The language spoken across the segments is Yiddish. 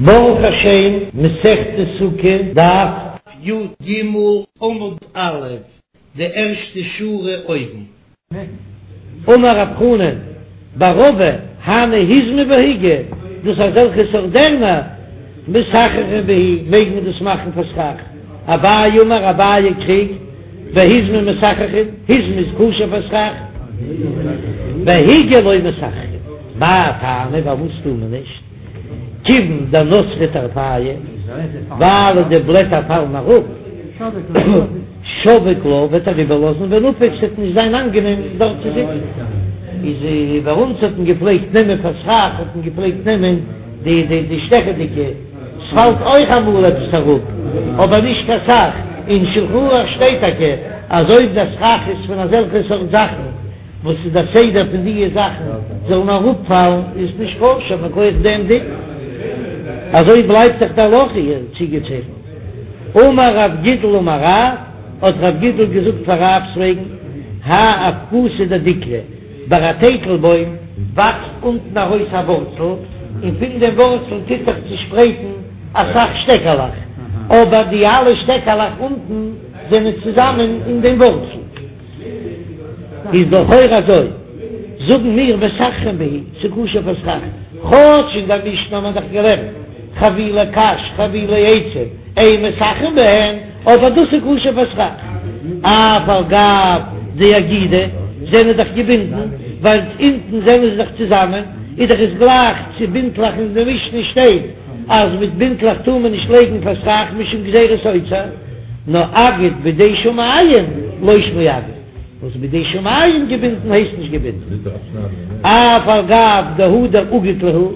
ברוך השם, מסכת סוכה, דף י"ג עמוד א', די ערשטע שורה אויבן. אמר רב חנן בר רבא, הני היזמי בהיגי, דאס אזעלכע סארט דערנער, מסככין בהו, מעג מען דאס מאכן פאר סכך. אביי אמר, אביי קריגט, בהיזמי מסככין, היזמי איז כשר פאר סכך, בהיגי לא מסככין. מאי טעמא, פארוואס טאר מען נישט? כיוון דנתרי טרפייהו, ווייל די בלעטער פאלן אראפ, שביק לה וועט ער איבערלאזן ונפיק ס'וועט נישט זיין אנגענעם דארט צו זיצן. איז ביי אונז האט מען געפלעגט נעמען פאר סכך האט מען געפלעגט נעמען די די די שטעכעדיגע, ס'פאלט אויך אמאל עפעס אראפ אבער נישט קיין סך, אין שלחן ערוך שטייט טאקע אז אויב די סכך איז פון אזעלכע סארט זאכן, וואס איז דער סדר פון דיע זאכן זאלן אראפפאלן איז נישט כשר מכח דעם דין, אזוי בלייבט דאך די הלכה איר צוגעצייכנט. אמר רב גידל אמר רב, האט רב גידל געזאגט פאר רב'ס וועגן, האי אבקתא דדיקלא, ביי א טייטל בוים וואקסט אונטן ארויס א ווארצל, און פון דעם ווארצל טוט זיך צושפרייטן אסאך שטעקעלעך, אבער די אלע שטעקעלעך אונטן זענען צוזאמען אין דעם ווארצל. איז לכאורה אזוי, זאגן מיר מסככין בהו, ס'כשר פאר סכך, כאטש אין דער משנה האט מען דאך געלערנט חבילי קש חבילי עצים אין מסככין בהן, אבער דאס איז כשר פאר סכך, אף על גב דאגידי זענען דאך געבינדן, ווייל אונטן זענען זיי דאך צוזאמען, איז דאך עס גלייך צו בינטלעך אין די משנה שטייט אז מיט בינטלעך טאר מען נישט לייגן פאר סכך משום גזירת אוצר. נאר אגד בידי שמים לא שמיה אגד, וואס בידי שמים געבינדן הייסט נישט געבינדן, אף על גב דהדר אגיד להו,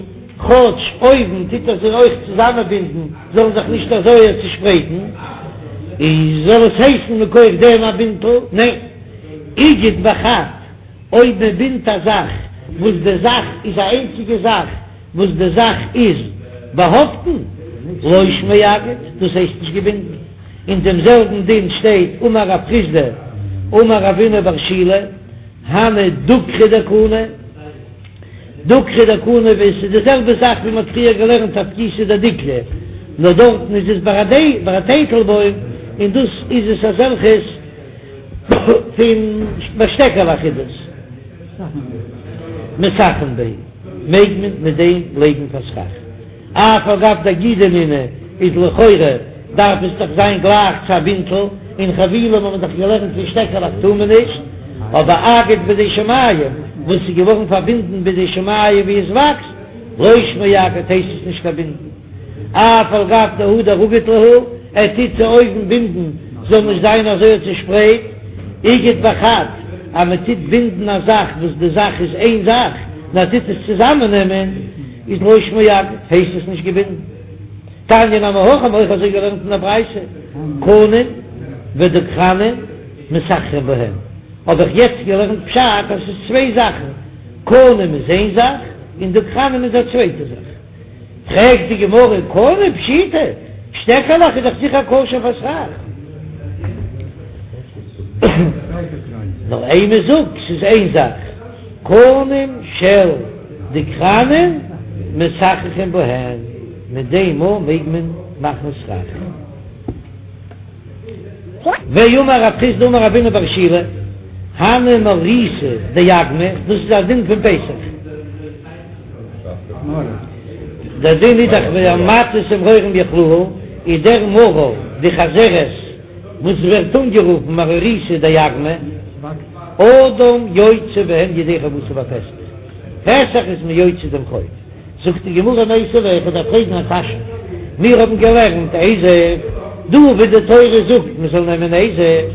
כאטש אויבן טוט ער זיי אויך צוזאמענבינדן זאלן זיך נישט אזוי צושפרייטן, איז זאל עס הייסן מכח דעם א בינטל? ניין, איגד בחד, אויב מען בינדט א זאך וואס די זאך איז א איינציגע זאך, וואס די זאך איז באהאפטן, לא שמיה אגד, דאס הייסט נישט געבינדן. אין דעם זעלבן דין שטייט אמר רב חסדא אמר רבינא בר שילא, הני דוקרי דקני, דוקרי דקני ווי עס איז די זעלבע זאך ווי מען האט פריער געלערנט אבקתא דדיקלא, נאר דארטן איז עס ביי א טייטל בוים, און דאס איז עס אזעלכעס פון ביי שטעקעלעך איז דאס מסככין בהו. מעג מען מיט דעם לייגן פאר סכך. אף על גב דאגידי נינהו איז לכאורה דארף עס דאך זיין גלייך צו א בינטל, און חבילים האט מען דאך געלערנט פון שטעקעלעך טאר מען נישט, אבער אגד בידי שמים וואס איז געווארן פארבינדן בידי שמים ווי עס וואקסט, לא שמיה אגד הייסט עס נישט קיין בינדן. אף על גב דהדר אגיד להו, ער טוט צו אויבן בינדן זאל נישט זיין אזוי צושפרייט, איגד בחד, אז מען טוט בינדן א זאך וואס די זאך איז איין זאך, און ער טוט עס צוזאמען נעמען, איז לא שמיה אגד, הייסט עס נישט געבינדן. תניא נמי הכי האבן אויך אזוי געלערנט אין א ברייתא, קנים ודוקרנים מסככין בהן, האב איך יעצט געלערנט פשט אז ס'איז צוויי זאכן, קנים איז איין זאך און דוקרנים איז א צווייטע זאך. פרעגט די גמרא, קנים פשיטא, שטעקעלעך איז דאך זיכער כשר פאר סכך. נאר אימא זאג, ס'איז איין זאך, קנים של דוקרנים מסככין בהן, מיט דעם מאל מעג מען מאכן סכך. ואמר רב חסדא אמר רבינא בר שילא, הני מרריתא דאגמא, דאס איז א דין פון פסח. דער דין איז דאך ומצות ומרורים יאכלוהו, איז דער מרור די חזרת וואס ווערט אנגערופן מרריתא דאגמא, אדם יוצא בהן ידי חובתו בפסח, פסח איז מען יוצא דעם חוב. זאגט די גמרא מיתיבי, איך דארף פרעגן א קשיא, מיר האבן געלערנט אזוב, דא ווי די תורה זאגט מען זאל נעמען אזוב,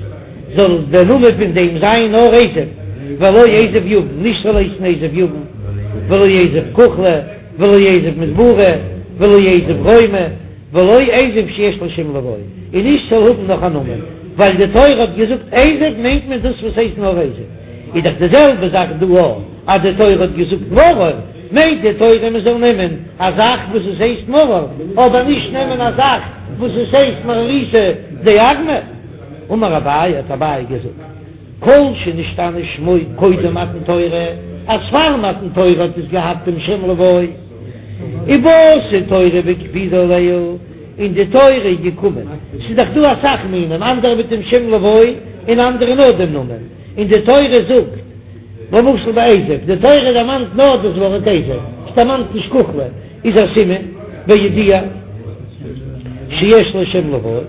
זאל דער נאמען פון דעם זיין נאר אזוב, ולא אזוב יוון, נישט זאל הייסן אזוב יוון, ולא אזוב כוחלי, ולא אזוב מדברי, ולא אזוב רומי, ולא אזוב שיש לו שם לבוא, און נישט זאל האבן נאך א נאמען, ווייל די תורה האט געזאגט אזוב מיינט מען דאס וואס הייסט נאר אזוב, איז דאך די זעלבע זאך דא אויך, אז די תורה האט געזאגט מרור, מיינט די תורה מען זאל נעמען א זאך וואס עס הייסט מרור, אבער נישט נעמען א זאך וואס עס הייסט מרריתא דאגמא. אמר אביי, האט אביי געזאגט, כל שנשתנה שמו קודם מתן תורה, אז פאר מתן תורה האט עס געהאט דעם שם לבוא. ובאת תורה והקפידא עלייהו, און די תורה איז געקומען, ס'איז דאך דא אסאך מינים, אנדערע מיט דעם שם לבוי און אנדערע נאר דעם נאמען, און די תורה זאגט, למשל ביי אזוב, די תורה דערמאנט נאר דאס ווארט אזוב, עס דערמאנט נישט כוחלה, איז א סימן בידוע שיש לו שם לבוי.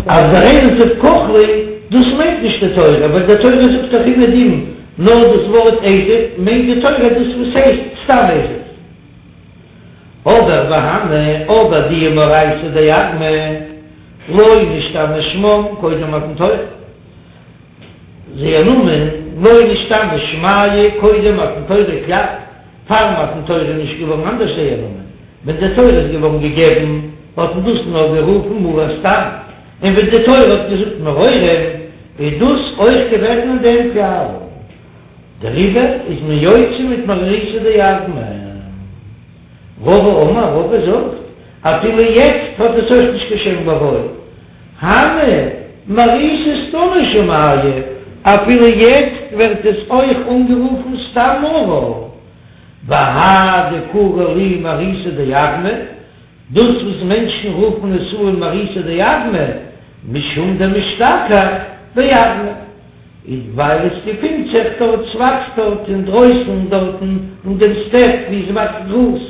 אז דער אזוב כוחלי, דאס מיינט נישט די תורה, ווייל די תורה זאגט דאך אומעדום נאר דאס ווארט אזוב, מיינט די תורה דאס וואס הייסט סתם אזוב. אבער והני, אבער די מרריתא דאגמא, לא נשתנה שמם קודם מתן תורה. זייער נאמען, לא נשתנה שמייהו קודם מתן תורה כלל, פאר מתן תורה איז נישט געווארן אנדערש זייער נאמען, ווען די תורה איז געווארן געגעבן האט מען דאס נאר גערופן מרור סתם, און ווען די תורה האט געזאגט מרורים איז דאס אויך געוועזן אין דעם כלל, דעריבער איז מען יוצא מיט מרריתא דאגמא. רבא אמר, רבא זאגט, אפילו יעצט האט עס אויך נישט קיין שם לבוי, הני מרריתא סתמא שמייהו, אפילו יעצט ווערט עס אויך אנגערופן סתם מרור, והאי דקרו להו מרריתא דאגמא, דאס וואס מענטשן רופן עס אן מרריתא דאגמא, משום דמשתכח באגמא, איז ווייל עס געפינט זיך דארט, ס'וואקסט דארט אינדרויסן דארטן אין דעם סטעפ ווי עס וואקסט גראז,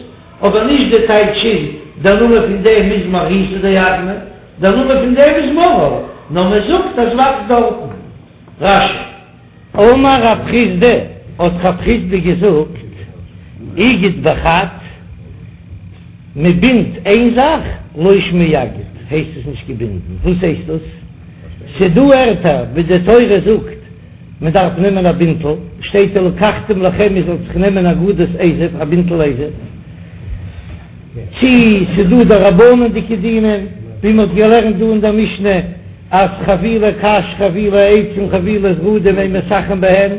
אבער נישט די טייטש איז דער נאמען פון דעם איז מרריתא דאגמא, דער נאמען פון דעם איז מרור, נאר מען זאגט אז וואקסט דארטן. רש"י. אמר רב חסדא, האט רב חסדא געזאגט, איגד בחד, מען בינדט איין זאך, לא שמיה אגד, הייסט עס נישט געבינדן, וואס הייסט דאס? ס'דא ערטער ווי די תורה זאגט מען דארף נעמען א בינטל, שטייט ולקחתם לכם איר זאלט זיך נעמען אגודת אזוב, א בינטל אזוב, צי ס'דא דרבנן'דיגע דינים, ווי מ'האט געלערנט דא אין דער משנה אז חבילי קש חבילי עצים חבילי זרדים אין מסככין בהן,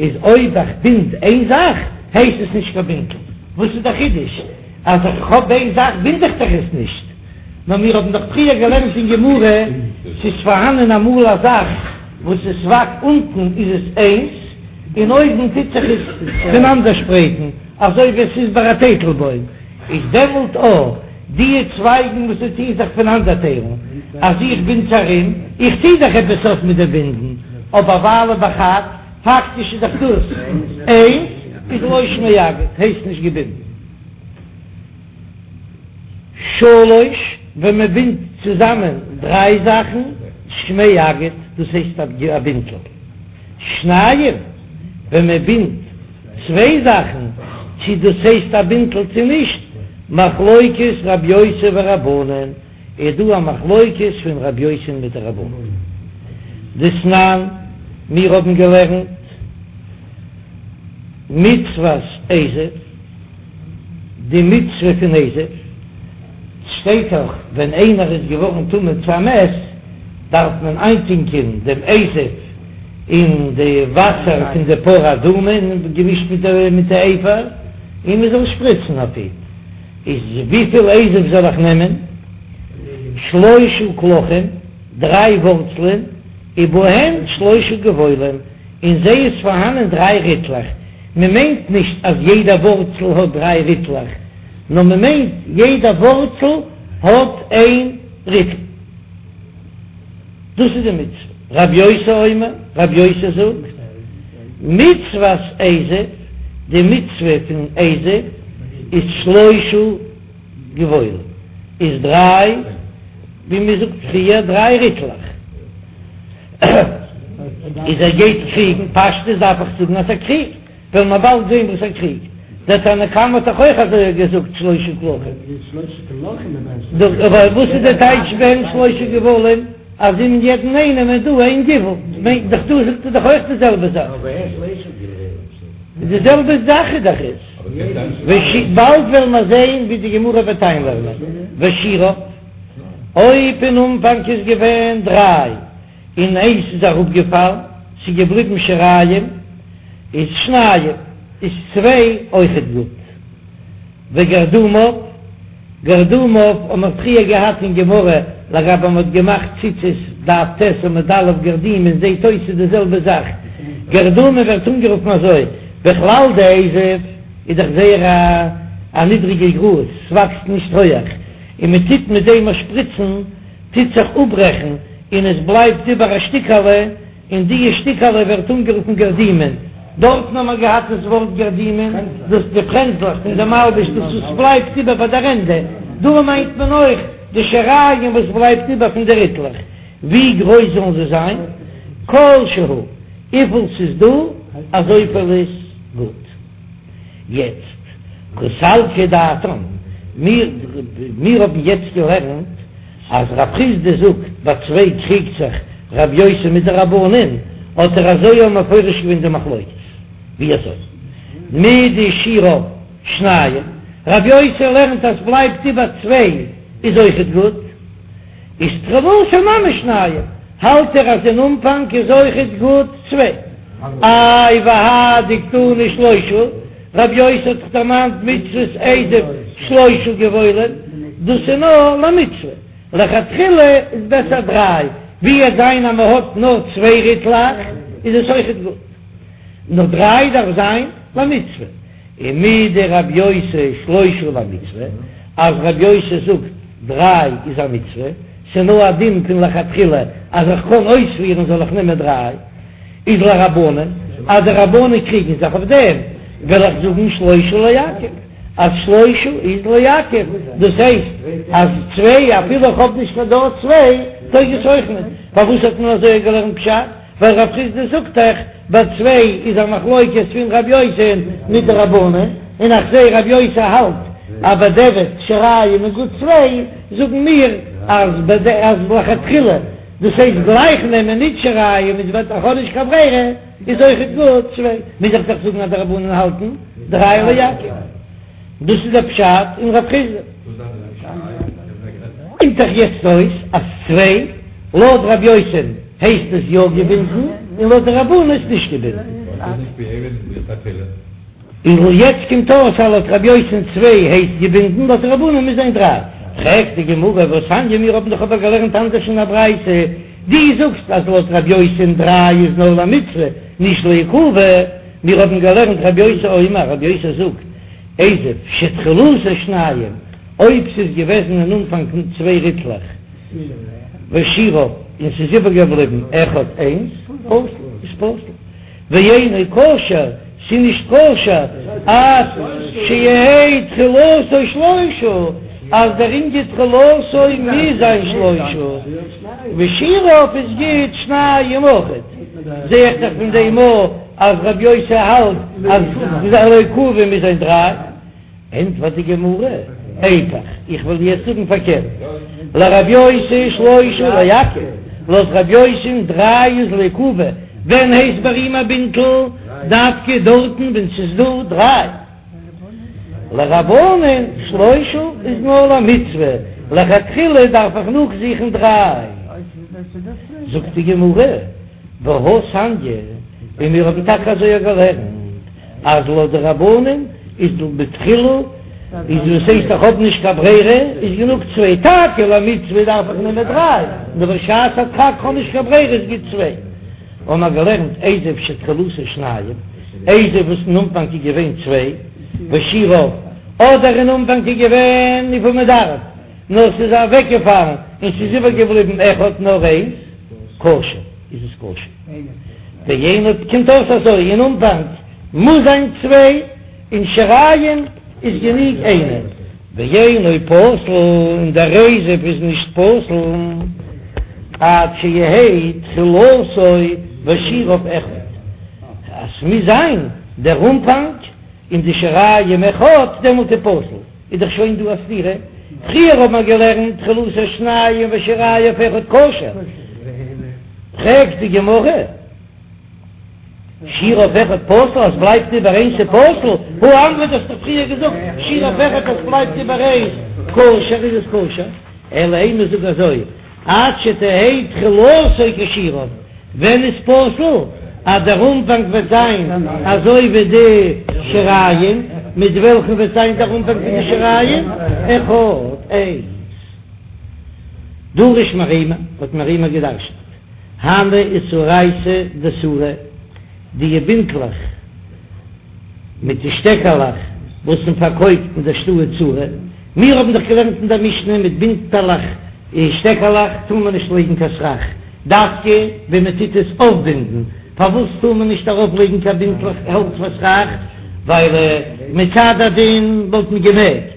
איז אויב איך בינד איין זאך הייסט עס נישט קיין בינטל, וואס איז דער חידוש אז איך האב איין זאך בינד איך דאך עס נישט? נאר מיר האבן דאך פריער געלערנט אין גמרא, ס'איז פארהאנען אמאל א זאך וואס עס וואקסט אונטן איז עס איינס, און אויבן טוט זיך עס פונאנדערשפרייטן, אזוי ווי עס איז ביי א טייטלבוים, איז דעמאלט או די צווייגן וואס זיי טוען זיך פונאנדערטיילן, אז איך בינד ארום, איך טו דאך עפעס אויף מיט די בינדן, אבער ווייל בחד, פאקטיש איז דאך דאס איינס, איז לא שמיה אגד, הייסט נישט געבינדן. שלש, ווען מען בינדט צוזאמען דריי זאכן, שמיה אגד, דאס הייסט א בינטל. שניים, ווען מען בינדט צוויי זאכן, צי דאס הייסט א בינטל צי נישט, מחלוקת רב יוסי ורבנן, איז דא א מחלוקת פון רב יוסי מיט די רבנן. דתנן, מיר האבן געלערנט מצות אזוב. די מצוה פון אזוב, שטייט דאך ווען איינער איז געווארן טמא צו א מת דארף מען איינטונקען דעם אזוב אין די וואסער פון די פרה אדומה געמישט מיט די אפר און מען זאל שפריצן אויף אים, איז וויפיל אזוב זאל איך נעמען? שלשה קלחים, דריי ווארצלען, ובהן שלשה גבעולים, אין זיי איז פארהאנען דריי ריטלעך, מען מיינט נישט אז יעדע ווארצל האט דריי ריטלעך, נאר מען מיינט יעדע ווארצל האט איין ריטל. דאס איז די מצוה. רב יוסי אומר, רב יוסי זאגט, מצוות אזוב, די מצוה פון אזוב איז שלשה גבעולים, איז דריי, ווי מען זאגט פריער, דריי ריטלעך. איז ער גייט קריגן, פשטות דארף איך זאגן אז ער קריגט, וועלן מיר באלד זען וואס ער קריגט, דער תנא קמא האט דאך אויך אזוי געזאגט שלשה קלחים. אבער וואס איז די טייטש בהן שלשה גבעולים אז אין יעדן איינעם איז דא איין גבעול, מיינט דאך דא זאגט ער דאך אויך די זעלבע זאך. די זעלבע זאך איז דאך עס. באלד וועלן מיר זען ווי די גמרא וועט איינלערנען ושיריו. אויב אין אנפאנג איז געווען דריי און איינס איז אראפגעפאלן, ס'איז געבליבן שיריים, איז שניים, איז צוויי אויכעט גוט. וגרדומיו, גרדומיו האט מען פריער געהאט אין גמרא לגבי מ'האט געמאכט ציצית דף ט' עמוד א' גרדימין זעהט אויס ס'איז די זעלבע זאך, גרדומין ווערט אנגערופן אזוי, בכלל די אזוב איז דאך זייער א. א נידריגע גראז, ס'וואקסט נישט הויעך, און מען טוט מיט דעם א שפריצן, טוט זיך אפברעכן און עס בלייבט איבער א שטיקעלע, און דיע שטיקעלע ווערט אנגערופן גרדימין, דארטן האבן מיר געהאט דאס ווארט גרדימין, דאס די פרענזלעך פון די מלבוש, דאס וואס בלייבט איבער ביי דער ענדע, דא מיינט מען אויך די שיריים וואס בלייבט איבער פון די ריטלעך, ווי גרויס זאלן זיי זיין? כל שהוא, וויפיל ס'איז דא אזויפיל איז גוט. יעצט, קא סלקא דעתין, מיר מיר האבן יעצט געלערנט אז רב חסדא זאגט ביי צוויי קריגט זיך רב יוסי מיט די רבנן, האט ער אזוי אויך מפרש געווען די מחלוקת, ווי אזוי? מדשיריו שניים, רב יוסי לערנט אז בלייבט איבער צוויי איז אויכעט גוט. איז תחילתו נמי שניים, האלט ער אז אין אנפאנג איז אויכעט גוט צוויי. איי והא דקתני שלושה, רב יוסי האט דאך דערמאנט מצות אזוב שלושה גבעולים, דאס איז נאר למצוה, לכתחילה איז בעסער דריי, ווי עט זיין אז מען האט נאר צוויי ריטלעך איז עס אויכעט גוט, נאר דריי דארף זיין למצוה. ומדרב יוסי שלושה למצוה, אז רב יוסי זאגט דריי איז א מצוה, ס'נאר א דין פון לכתחילה אז איך קען אויספירן זאל איך נעמען דריי, איז לרבנן, אז די רבנן קריגן זיך אויף דעם, וועל איך זאגן שלושה לעכב, אז שלושה איז לעכב, דאס הייסט אז צוויי אפילו איך האב נישט קיין דארט צוויי טויג עס אויך נישט, פארוואס האט מען אזוי געלערנט פשט? ווייל רב חסדא זאגט דאך ביי צוויי איז א מחלוקת פון רב יוסי'ן מיט די רבנן, און איך זעה רב יוסי האלט אז בדיעבד שיריים איז גוט צוויי, זאגן מיר אז אז לכתחילה דאס הייסט גלייך נעמען ניט שיריים איז ווען איך האב נישט קיין ברירה איז אויכעט גוט צוויי, מוז איך דאך זאגן אז די רבנן האלטן דריי לעכב. דאס איז דער פשט אין רב חסדא. קומט דאך יעצט אויס אז צוויי, לויט רב יוסי'ן הייסט עס יא געבינדן, און לויט די רבנן איז נישט געבינדן. און יעצט קומט אויס אז לויט רב יוסי'ן צוויי הייסט געבינדן, לויט די רבנן מוז זיין דריי. פרעגט די גמרא, והתניא, מיר האבן דאך אבער געלערנט אנדערש אין א ברייתא, דו זאגסט אז לויט רב יוסי'ן דריי איז נאר למצוה, נישט לעיכובא, מיר האבן געלערנט רבי יוסי אומר, רבי יוסי זאגט, אזוב שתחילתו שניים, אויב ס'איז געוועזן אין אנפאנג צוויי ריטלעך, ושיריו, און ס'איז איבערגעבליבן אחד איינס, פסול, איז פסול, ואינו כשר, ס'איז נישט כשר, עד שיהא תחילתו שלושה, אז דער ענין תחילתו מוז זיין שלושה, ושיריו איז גוט שניים אויכעט, זע איך דאך פון דעם אויך אז רבי יוסי האלט אז לעיכובא מוז זיין דריי, ענטפערט די גמרא, איפוך, איך וועל יעצט זאגן פארקערט, לרבי יוסי שלושה לעכב, לויט רבי יוסי'ן דריי איז לעיכובא, ווען הייסט ביי אים א בינטל דווקא דארטן ווען ס'איז דא דריי. לרבנן שלושה איז נאר למצוה, לכתחילה דארף איך נאכזוכן דריי. זאגט די גמרא, והתניא, און מיר האבן טאקע אזוי געלערנט, אז לויט די רבנן איז בתחילה, איז וואס הייסט איך האב נישט קיין ברירה, איז גענוג צוויי, טאקע למצוה דארף איך נעמען דריי, נאר בשעת הדחק כ'האב נישט קיין ברירה איז גוט צוויי. האבן מיר געלערנט אזוב שתחילתו שניים, אזוב וואס אין אנפאנג איז געווען צוויי, ושיריו, אדער אין אנפאנג איז געווען וויפיל מען דארף, נאר ס'איז אוועקגעפאלן און ס'איז איבערגעבליבן אחד נאר איינס, כשר, איז עס כשר. ואינו, קומט אויס אזוי, אין אנפאנג מוז זיין צוויי, און שיריים איז גענוג איינער. ואינו פסול, און דער אזוב איז נישט פסול, עד שיהא תחילתו ושיריו אחד, אז ס'מוז זיין דער אנפאנג און די שיריים אחד, דעמאלט איז פסול, איז דאך שוין דא א סתירה, פריער האט מען געלערנט תחילתו שניים ושיריו אחד כשר, פרעגט די גמרא. שיריו אחד פסול אז בלייבט איבער איינס איז פסול, הא אמרת האסט דאך פריער געזאגט שיריו אחד אז בלייבט איבער איינס כשר איז עס כשר, אלא אימא זאג אזוי עד שתהא תחילתו כשיריו, ווען איז פסול אז דער אנפאנג וועט זיין אזוי ווי די שיריים, מיט וועלכן וועט זיין דער אנפאנג פון די שיריים? אחד איינס. דרש מרימר האט מרימר געדרשנט. הני איסרייתא דסורא, די בינטלעך מיט די שטעקעלעך. וואס מען פארקויפט אין דער שטאט סורא, מיר האבן דאך געלערנט אין דער משנה מיט בינטעלעך און שטעקעלעך טאר מען נישט לייגן קיין סכך, דווקא ווען מען טוט עס אויפבינדן, פארוואס טאר מען נישט ארויפלייגן קיין בינטלעך האלץ פאר סכך? ווייל מצד הדין וואלט מען געמעגט.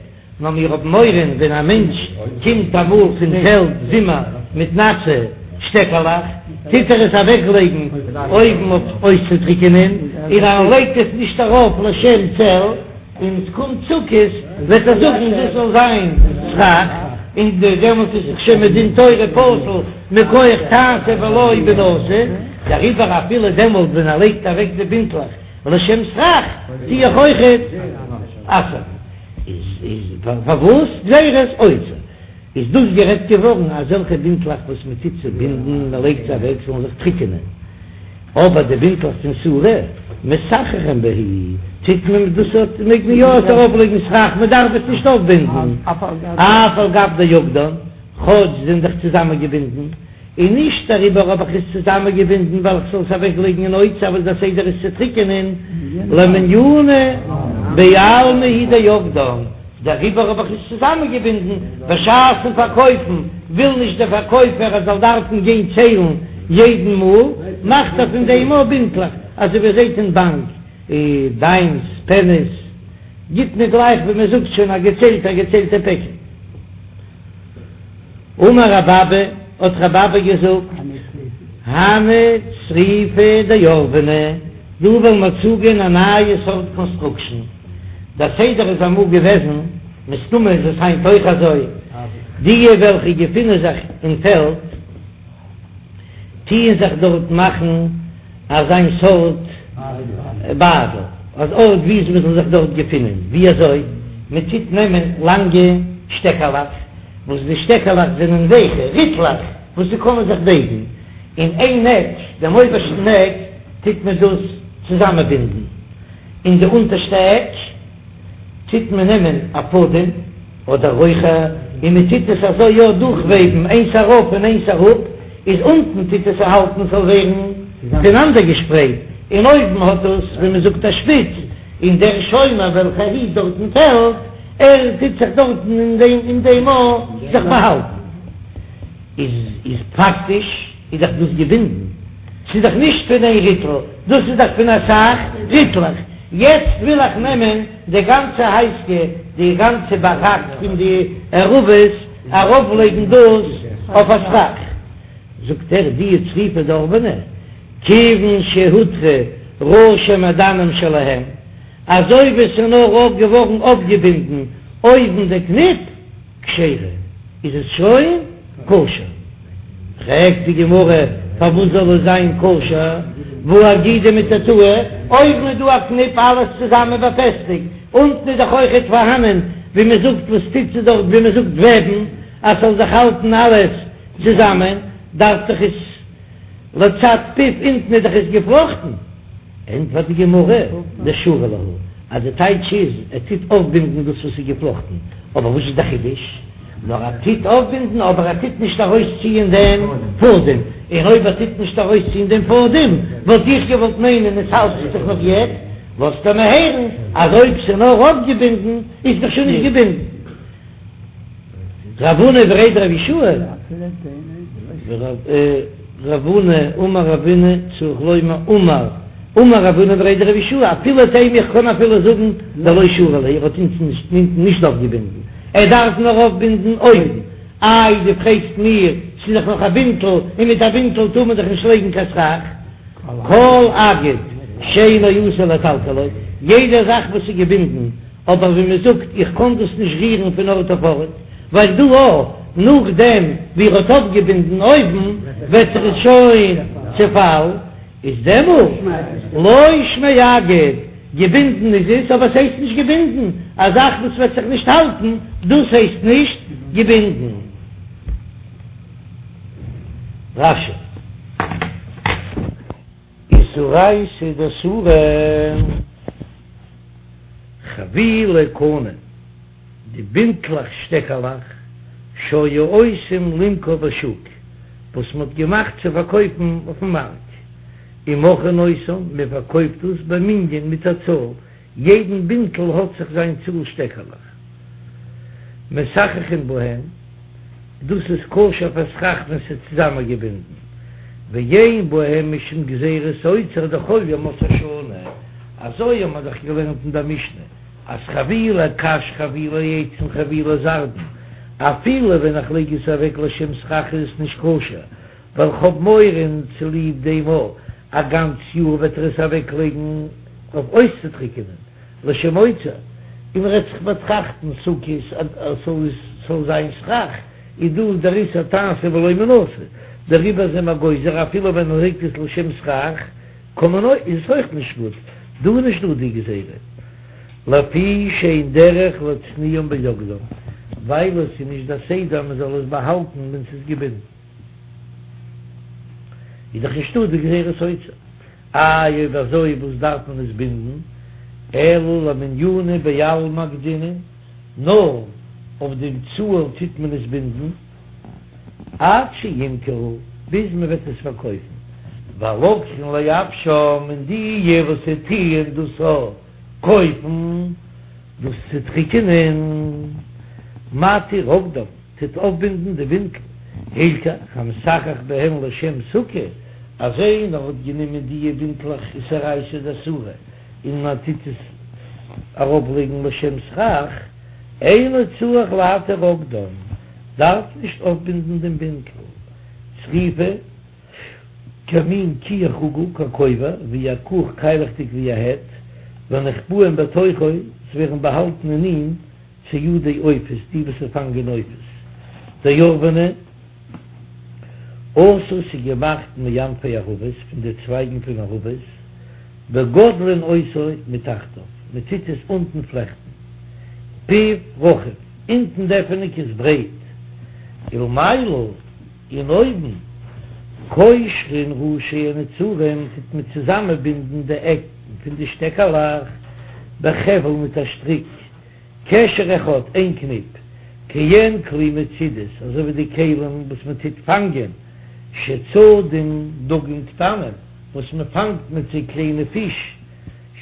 נאר מיר האבן מורא ווען א מענטש קומט אמאל פון פעלד זומער מיט נאסע שטעקעלעך, טוט ער עס אוועקלייגן אויבן אויף אויסצוטריקענען, און ער לייגט עס נישט ארויף לשם צל, און עס קומט סוכות וועט ער זאגן דאס זאל זיין סכך, און דעמאלט איז דאך שוין מדין תורה פסול מכח תעשה ולא בנשא, דעריבער אפילו דעמאלט ווען ער לייגט אוועק די בינטלעך לשם סכך טו איך אויכעט אסר'ן. איז פארוואס גזירת אוצר איז דאס גערעדט געווארן אזעלכע בינטלעך וואס מען טוט צובינדן מען לייגט זיי אוועק זאלן זיך טריקענען, אבער די בינטלעך פון סורא מסככין בהו טוט מען דאס אט מעג מען יא עס ארויף לייגן סכך מען דארף עס נישט אויפבינדן אף על גב דאגדן כאטש זענען דאך צוזאמען געבינדן. און נישט דעריבער האב איך עס צוזאמענגעבינדן ווייל איך זאל עס אוועקלייגן אין אוצר וואס דער סדר איז צו טריקענען, למניינא בעלמא הוא דאגדן, דעריבער האב איך עס צוזאמענגעבינדן, בשעת'ן פארקויפן וויל נישט דער פארקויפער ער זאל דארפן גיין ציילן יעדן מאל, מאכט ער פון דעם אויך בינטלעך, אזוי ווי איר זעט אין באנק, דיימס, פעניס, גיט מען גלייך ווי מען זאגט שוין א געציילטע א געציילטע פעקל. אמר רב אבא, האט רב אבא געזאגט, הני צריפי דעורבני, דא וועלן מיר צוגיין א נייע סארט קאנסטראקשן, דער סדר איז אמאל געוועזן, מסתמא איז עס היינט אויך אזוי, דיע וועלכע געפינען זיך אין פעלד, טוען זיך דארט מאכן אזיין סארט ביידל, אן ארט ווי מען זאל זיך דארט געפינען, ווי אזוי? מען טוט נעמען לאנגע שטעקעלעך, וואס די שטעקעלעך זענען ווייכע ריטלעך וואס זיי קענען זיך בייגן, און איין עק, דעם אויבערשטן עק, טוט מען דאס צוזאמענבינדן, און די אונטערשטע עק טוט מען נעמען א פאדעם אדער רויכער און מען טוט עס אזוי יא דורכוועבן איינס ארויף און איינס אראפ, איז אונטן טוט עס האלטן ס'זאל ווערן פונאנדערגעשפרייט, און אויבן האט עס ווי מען זאגט א שפיץ, און דער שומר וועלכער היט דארט אין פעלד, ער טוט זיך דארטן אין דעם אין דעם ארט זיך באהאלטן. איז איז פאקטיש איז דאך דאס געבינדן, ס'איז דאך נישט פון איין ריטל, דאס איז דאך פון אסאך ריטלעך, יעצט וויל איך נעמען די גאנצע הייזקע, די גאנצע באראק פון די ערבות, ארויפלייגן דאס אויף א סכך, זאגט ער די צריפי דעורבני, כיוון שהותרו ראשי מעדנים שלהם, אזוי ווי ס'איז נאר אויף געווארן אויפגעבינדן אויבן די קניפ, כשרה, איז עס שוין כשר. פרעגט די גמרא, פארוואס זאל עס זיין כשר, והא אגידי מתתאי, אויבן איז דא א קניפ אלעס צוזאמען באפעסטיגט, אונטן איז דאך אויכעט פארהאנען ווי מען זאגט וואס טוט זיך דארט ווי מען זאגט וועבן אז ס'זאל זיך האלטן אלעס צוזאמען, דארף דאך עס לצד פיו אונטן איז דאך עס געפלאכטן. ענטפערט די גמרא, דשרי להו, אז די טייטש איז, ער טוט אויפבינדן דאס וואס איז געפלאכטן, אבער וואס איז די חידוש? נאר ער טוט אויפבינדן אבער ער טוט נישט ארויסציען דעם פאדעם, און אויב ער טוט נישט ארויסציען דעם פאדעם, וואלט איך געוואלט מיינען עס האלט זיך נאך יעצט, לאזט ער מיר הערן אז אויב ס'איז נאר אויפגעבינדן איז דאך שוין נישט געבינדן. רב הונא בריה דרב יהושע, רב הונא אמר רב הונא צריך לומר אמר אמר רב הונא בריה דרב יהושע אפילו תימא איך קען אפילו זאגן דלא שרי להו ער האט אונטן נישט אויפגעבינדן ער דארף נאר אויפבינדן אויבן איי דו פרעגסט מיר ס'איז דאך נאך א בינטל און מיט א בינטל טאר מען דאך נישט לייגן קיין סכך כל אגד שאינו עשוי לטלטלו יעדע זאך וואס איז געבינדן אבער ווי מען זאגט איך קען דאס נישט רירן פון ארט אויף ארט, ווייל דא אויך נאכדעם ווי ער האט אויפגעבינדן אויבן וועט זיך עס שוין צעפאלן, איז דעמאלט לא שמיה אגד, געבינדן איז עס אבער עס הייסט נישט געבינדן, א זאך וואס וועט זיך נישט האלטן דאס הייסט נישט געבינדן. רש"י. איסורייתא דסורא חבילי קני, די בינטלעך שטעקעלעך שהיו עושים למכור בשוק, וואס מען האט געמאכט צו פארקויפן אויפן מארק, ומוכרין אותן, מען פארקויפט דאס במנין מיט א צאל. יעדן בינטל האט זיך זיין צאל שטעקעלעך. מסככין בהן, דאס איז כשר פאר סכך ווען ס'איז צוזאמענגעבינדן, ואין בהם משום גזירת אוצר דכל ימות השנה, אזוי האבן מיר דאך געלערנט אין דער משנה אז חבילי קש חבילי עצים חבילי זרדין, אפילו ווען איך לייג עס אוועק לשם סכך איז עס נישט כשר, ווייל כ'האב מורא און צוליב דעם א גאנץ יאר וועט ער עס אוועקלייגן אויף אויסצוטריקענען. לשם אוצר, און ער וועט זיך באטראכטן סוכות אז ס'זאל זיין סכך, איז דא דער איסור תעשה ולא מן העשוי, דעריבער זענען מיר גוזר אפילו ווען מען לייגט עס לשם סכך, קען מען אויך, איז עס אויך נישט גוט, דא איז נישט דא די גזירה, לפי שאין דרך להצניעם באוגדם, ווייל עס איז נישט דער סדר מען זאל עס באהאלטן ווען ס'איז געבינדן, איז דאך נישטא די גזירת אוצר. איי אויב אזוי וואס דארף מען עס בינדן, אלא למניינא בעלמא אגדינן, נאר אויף דעם צאל טוט מען עס בינדן, עד שימכרו, ביז מען וועט עס פארקויפן, והלוקחין לייבשם, און די וואס טוען דאס קויפן דאס צו טריקענען, מתיר אגדם. טוט אויפבינדן די בינטל, הלכך המסכך בהן לשם סוכה, אז איינער האט גענומען דיע בינטלעך איז אורייתא דאסורא און מען טוט עס אראפלייגן לשם סכך, אינו צריך להתיר אגדם, דארף נישט אויפבינדן דעם בינטל, צריפה כמין כיח עגול ככובע, ווי א קוך קיילעכדיג ווי א העט, ונחבאים בתוכו, ס'ווערן באהאלטן אין אים. ציידי עופות, די וואס פאנגען עופות, דערבנא, עשוי ס'איז געמאכט מענפי ערבות, פון די צווייגן פון ערבות, וגודלין אותו מתחתיו, מען טוט עס אונטן פלעכטן, פיו רחב, אונטן די עפענונג איז ברייט, ולמעלה, און אויבן, קושרין ראשי הנצרים, טוט מען צוזאמענבינדן די עקן פון די שטעקעלעך, בחבל מיט א שטריק. קשר אחד, איין קניפ, כעין כלי מצודות, אזוי ווי די כלים וואס מען טוט פאנגען, שצדים דגים קטנים, וואס מען פאנגט מיט זיי קליינע פיש,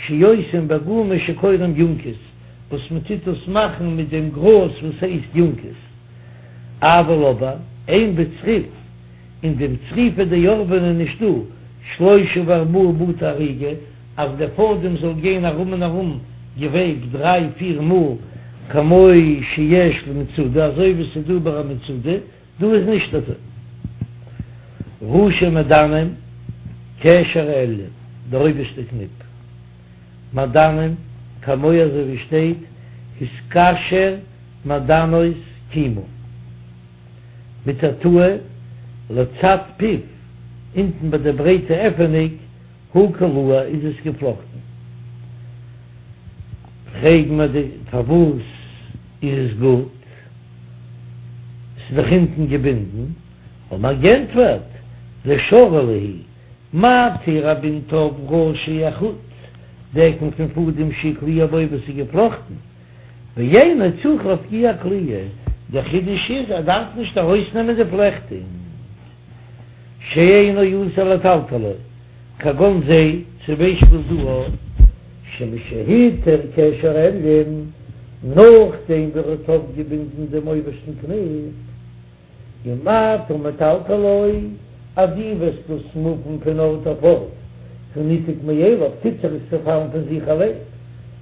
שעושים בגומא שקוראים יונקוס, וואס מען טוט דאס מאכן מיט דעם גראז וואס הייסט יונקוס. אבל אבער, אין בצריף, אין דעם צריפא דערבנא נישטא שלושה וארבעה בתי אריגה, אז דער פאדעם זאל גיין ארום און ארום געוועבט דריי פיר מאל כמו שיש למצודה אזוי ווי ס'איז דא ביי א מצודה, דא איז נישט אזוי. ראשי מעדנים קשר העליון, דער אויבערשטער קניפ. מעדנים כמו אזוי ווי שטייט התקשר מעדנות כימה. מתתאה לצד פיו, אונטן ביי די ברייטע עפענוג, הוא קלוע איז עס געפלאכטן. פרעגן מיר די פארוואס איז עס גוט? ס'איז דאך אונטן געבינדן. האבן מיר גענטפערט, דשרי להו, מתיר ער בינדט אויף ראשי החוט, די עקן פון פאדעם שקלוע בו וואס איז געפלאכטן, ואינו צריך להפקיע הקליעה, דער חידוש איז ער דארף נישט ארויסנעמען די פלעכטונג. שאינו אסור לטלטלו, כגון זה, צום ביישפיל דא, שמשהיתר קשר עליון, נאכדעם ווי ער האט אויפגעבינדן דעם אויבערשטן קניפ, אם אתה מטלטלו, אז דו וועסט דאס מופן פון ארט אויף ארט, הוא ניתק מאליו, טוט זיך עס צעפאלן פון זיך אליין,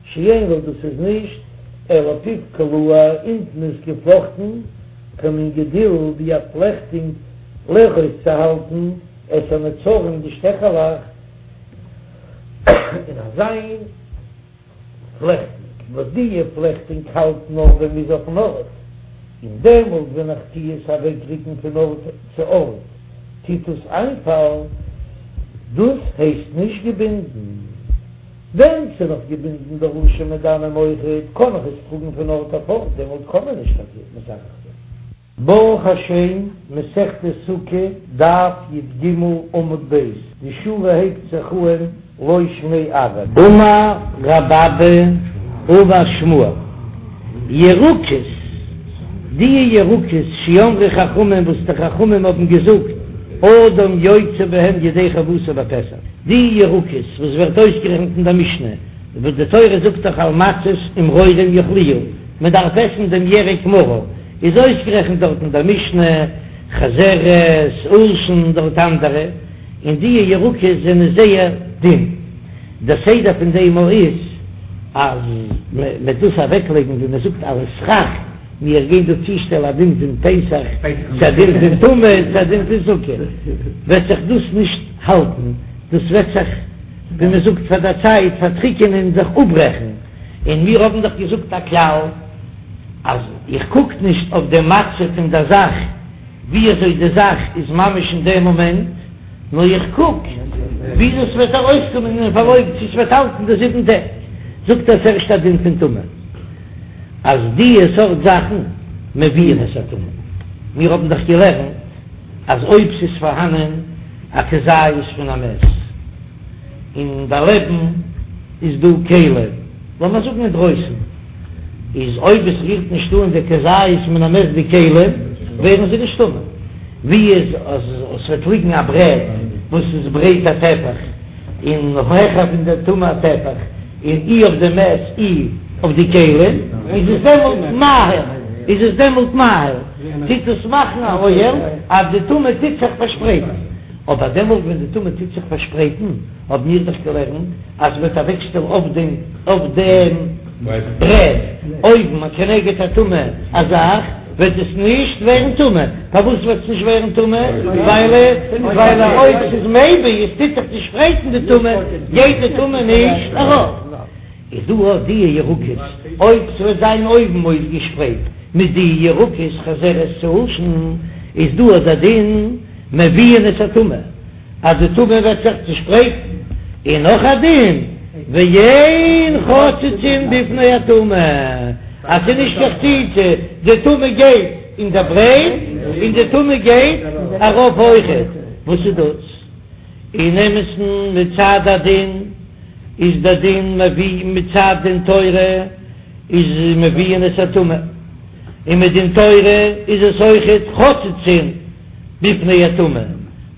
שאין לו דאס איז נישט, אלא פיו קלוע, אונטן איז געפלאכטן, כמין גדיל ווי א פלעכטונג לאחוז צו האלטן את הנצרים די שטעכעלעך אין אזיין פלעכטונג וואס די פלעכטונג האלט נאר ווען מ'איז אויפן ארט און דעמאלט ווען איך טוה עס אוועקריקן פון ארט צו ארט טוט עס איינפאלן דאס הייסט נישט געבינדן. ווען ס'איז נאך געבינדן די ראשי מעדנים אויכעט, קען איך עס טראגן פון ארט אויף ארט, דעמאלט קען מען נישט טאקע מסכך זיין. ברוך השם, מסכת סוכה, דף י"ג עמוד ב', די שורה הייבט זיך אהן לא שמיה ארעא. אמר רב אבא אמר שמואל, ירקות, די ירקות שאמרו חכמים וואס די חכמים האבן געזאגט, אדם יוצא בהם ידי חובתו בפסח, די ירקות וואס ווערט אויסגערעכנט אין דער משנה. וואס די תורה זאגט דאך על מצות ומרורים יאכלוהו, מען דארף עסן דעם ירק מרור, איז אויסגערעכנט דארט אין דער משנה, חזרת, עולשין, דארט אנדערע, און די ירקות זענען זייער דין. דער סדר פון דעם איז אז מען וועט דאס אוועקלייגן ווי מען זאגט אלס סכך, מיר גייען דא צושטעלן א דין פון פסח צו א דין פון טומאה צו א דין פון סוכה, וועט זיך דאס נישט האלטן, דאס וועט זיך ווי מען זאגט פאר דער צייט פארטריקענען און זיך אפברעכן, און מיר האבן דאך געזאגט א כלל אז איך קוק נישט אויף דעם מצב פון דער זאך ווי אזוי די זאך איז ממש אין דעם מאמענט, נאר איך קוק ווי דאס וועט ארויסקומען אין פארלויף צו ס'וועט האלטן די זיבן טעג, זאגט ער ס'ערשט א דין פון טומאה אז די סארט זאכן מביאין את הטומאה, מיר האבן דאך געלערנט אז אויב ס'איז פארהאנען א כזית פון א מת און דערלעבן איז דא כלים, לאמיר זאגן אינדרויסן, איז אויב עס רירט נישט אן די כזית מן המת די כלים, ווערן זיי נישט טמא. ווי איז אז עס וועט ליגן א ברעט וואס איז ברייט א טפח און העכער פון די טומאה א טפח, און אי אויף די מת אי אויף די כלים, איז עס דעמאלט מאהיל, איז עס דעמאלט מאהיל, טוט עס מאכן א אוהל אז די טומאה טוט זיך פארשפרייטן. אבער דעמאלט ווען די טומאה טוט זיך פארשפרייטן, האבן מיר דאך געלערנט אז מ'וועט אוועקשטעלן אויף דעם אויף דעם ברעט אויבן א כנגד הטומאה א זאך, וועט עס נישט ווערן טמא. פארוואס וועט עס נישט ווערן טמא? ווייל ווייל אויב ס'איז מביא, עס טוט זיך צושפרייטן די טומאה, גייט די טומאה נישט ארויף. איז דא אויך די ירקות, אויב ס'וועט זיין אויבן אויסגעשפרייט מיט די ירקות חזרת צו עולשין, איז דא אט דער דין מביאין את הטומאה, אז די טומאה וועט זיך צושפרייטן, און נאך א דין ואין חוצצין בפני הטומאה, אז ס'איז נישט קיין חציצה, די טומאה גייט אין דער ברייט און די טומאה גייט ארויף אויכעט, וואס איז דאס? אין אמת'ן מצד הדין איז דער דין מביא מצד דין תורה איז מביאין את הטומאה, און מדין תורה איז עס אויכעט חוצצין בפני הטומאה,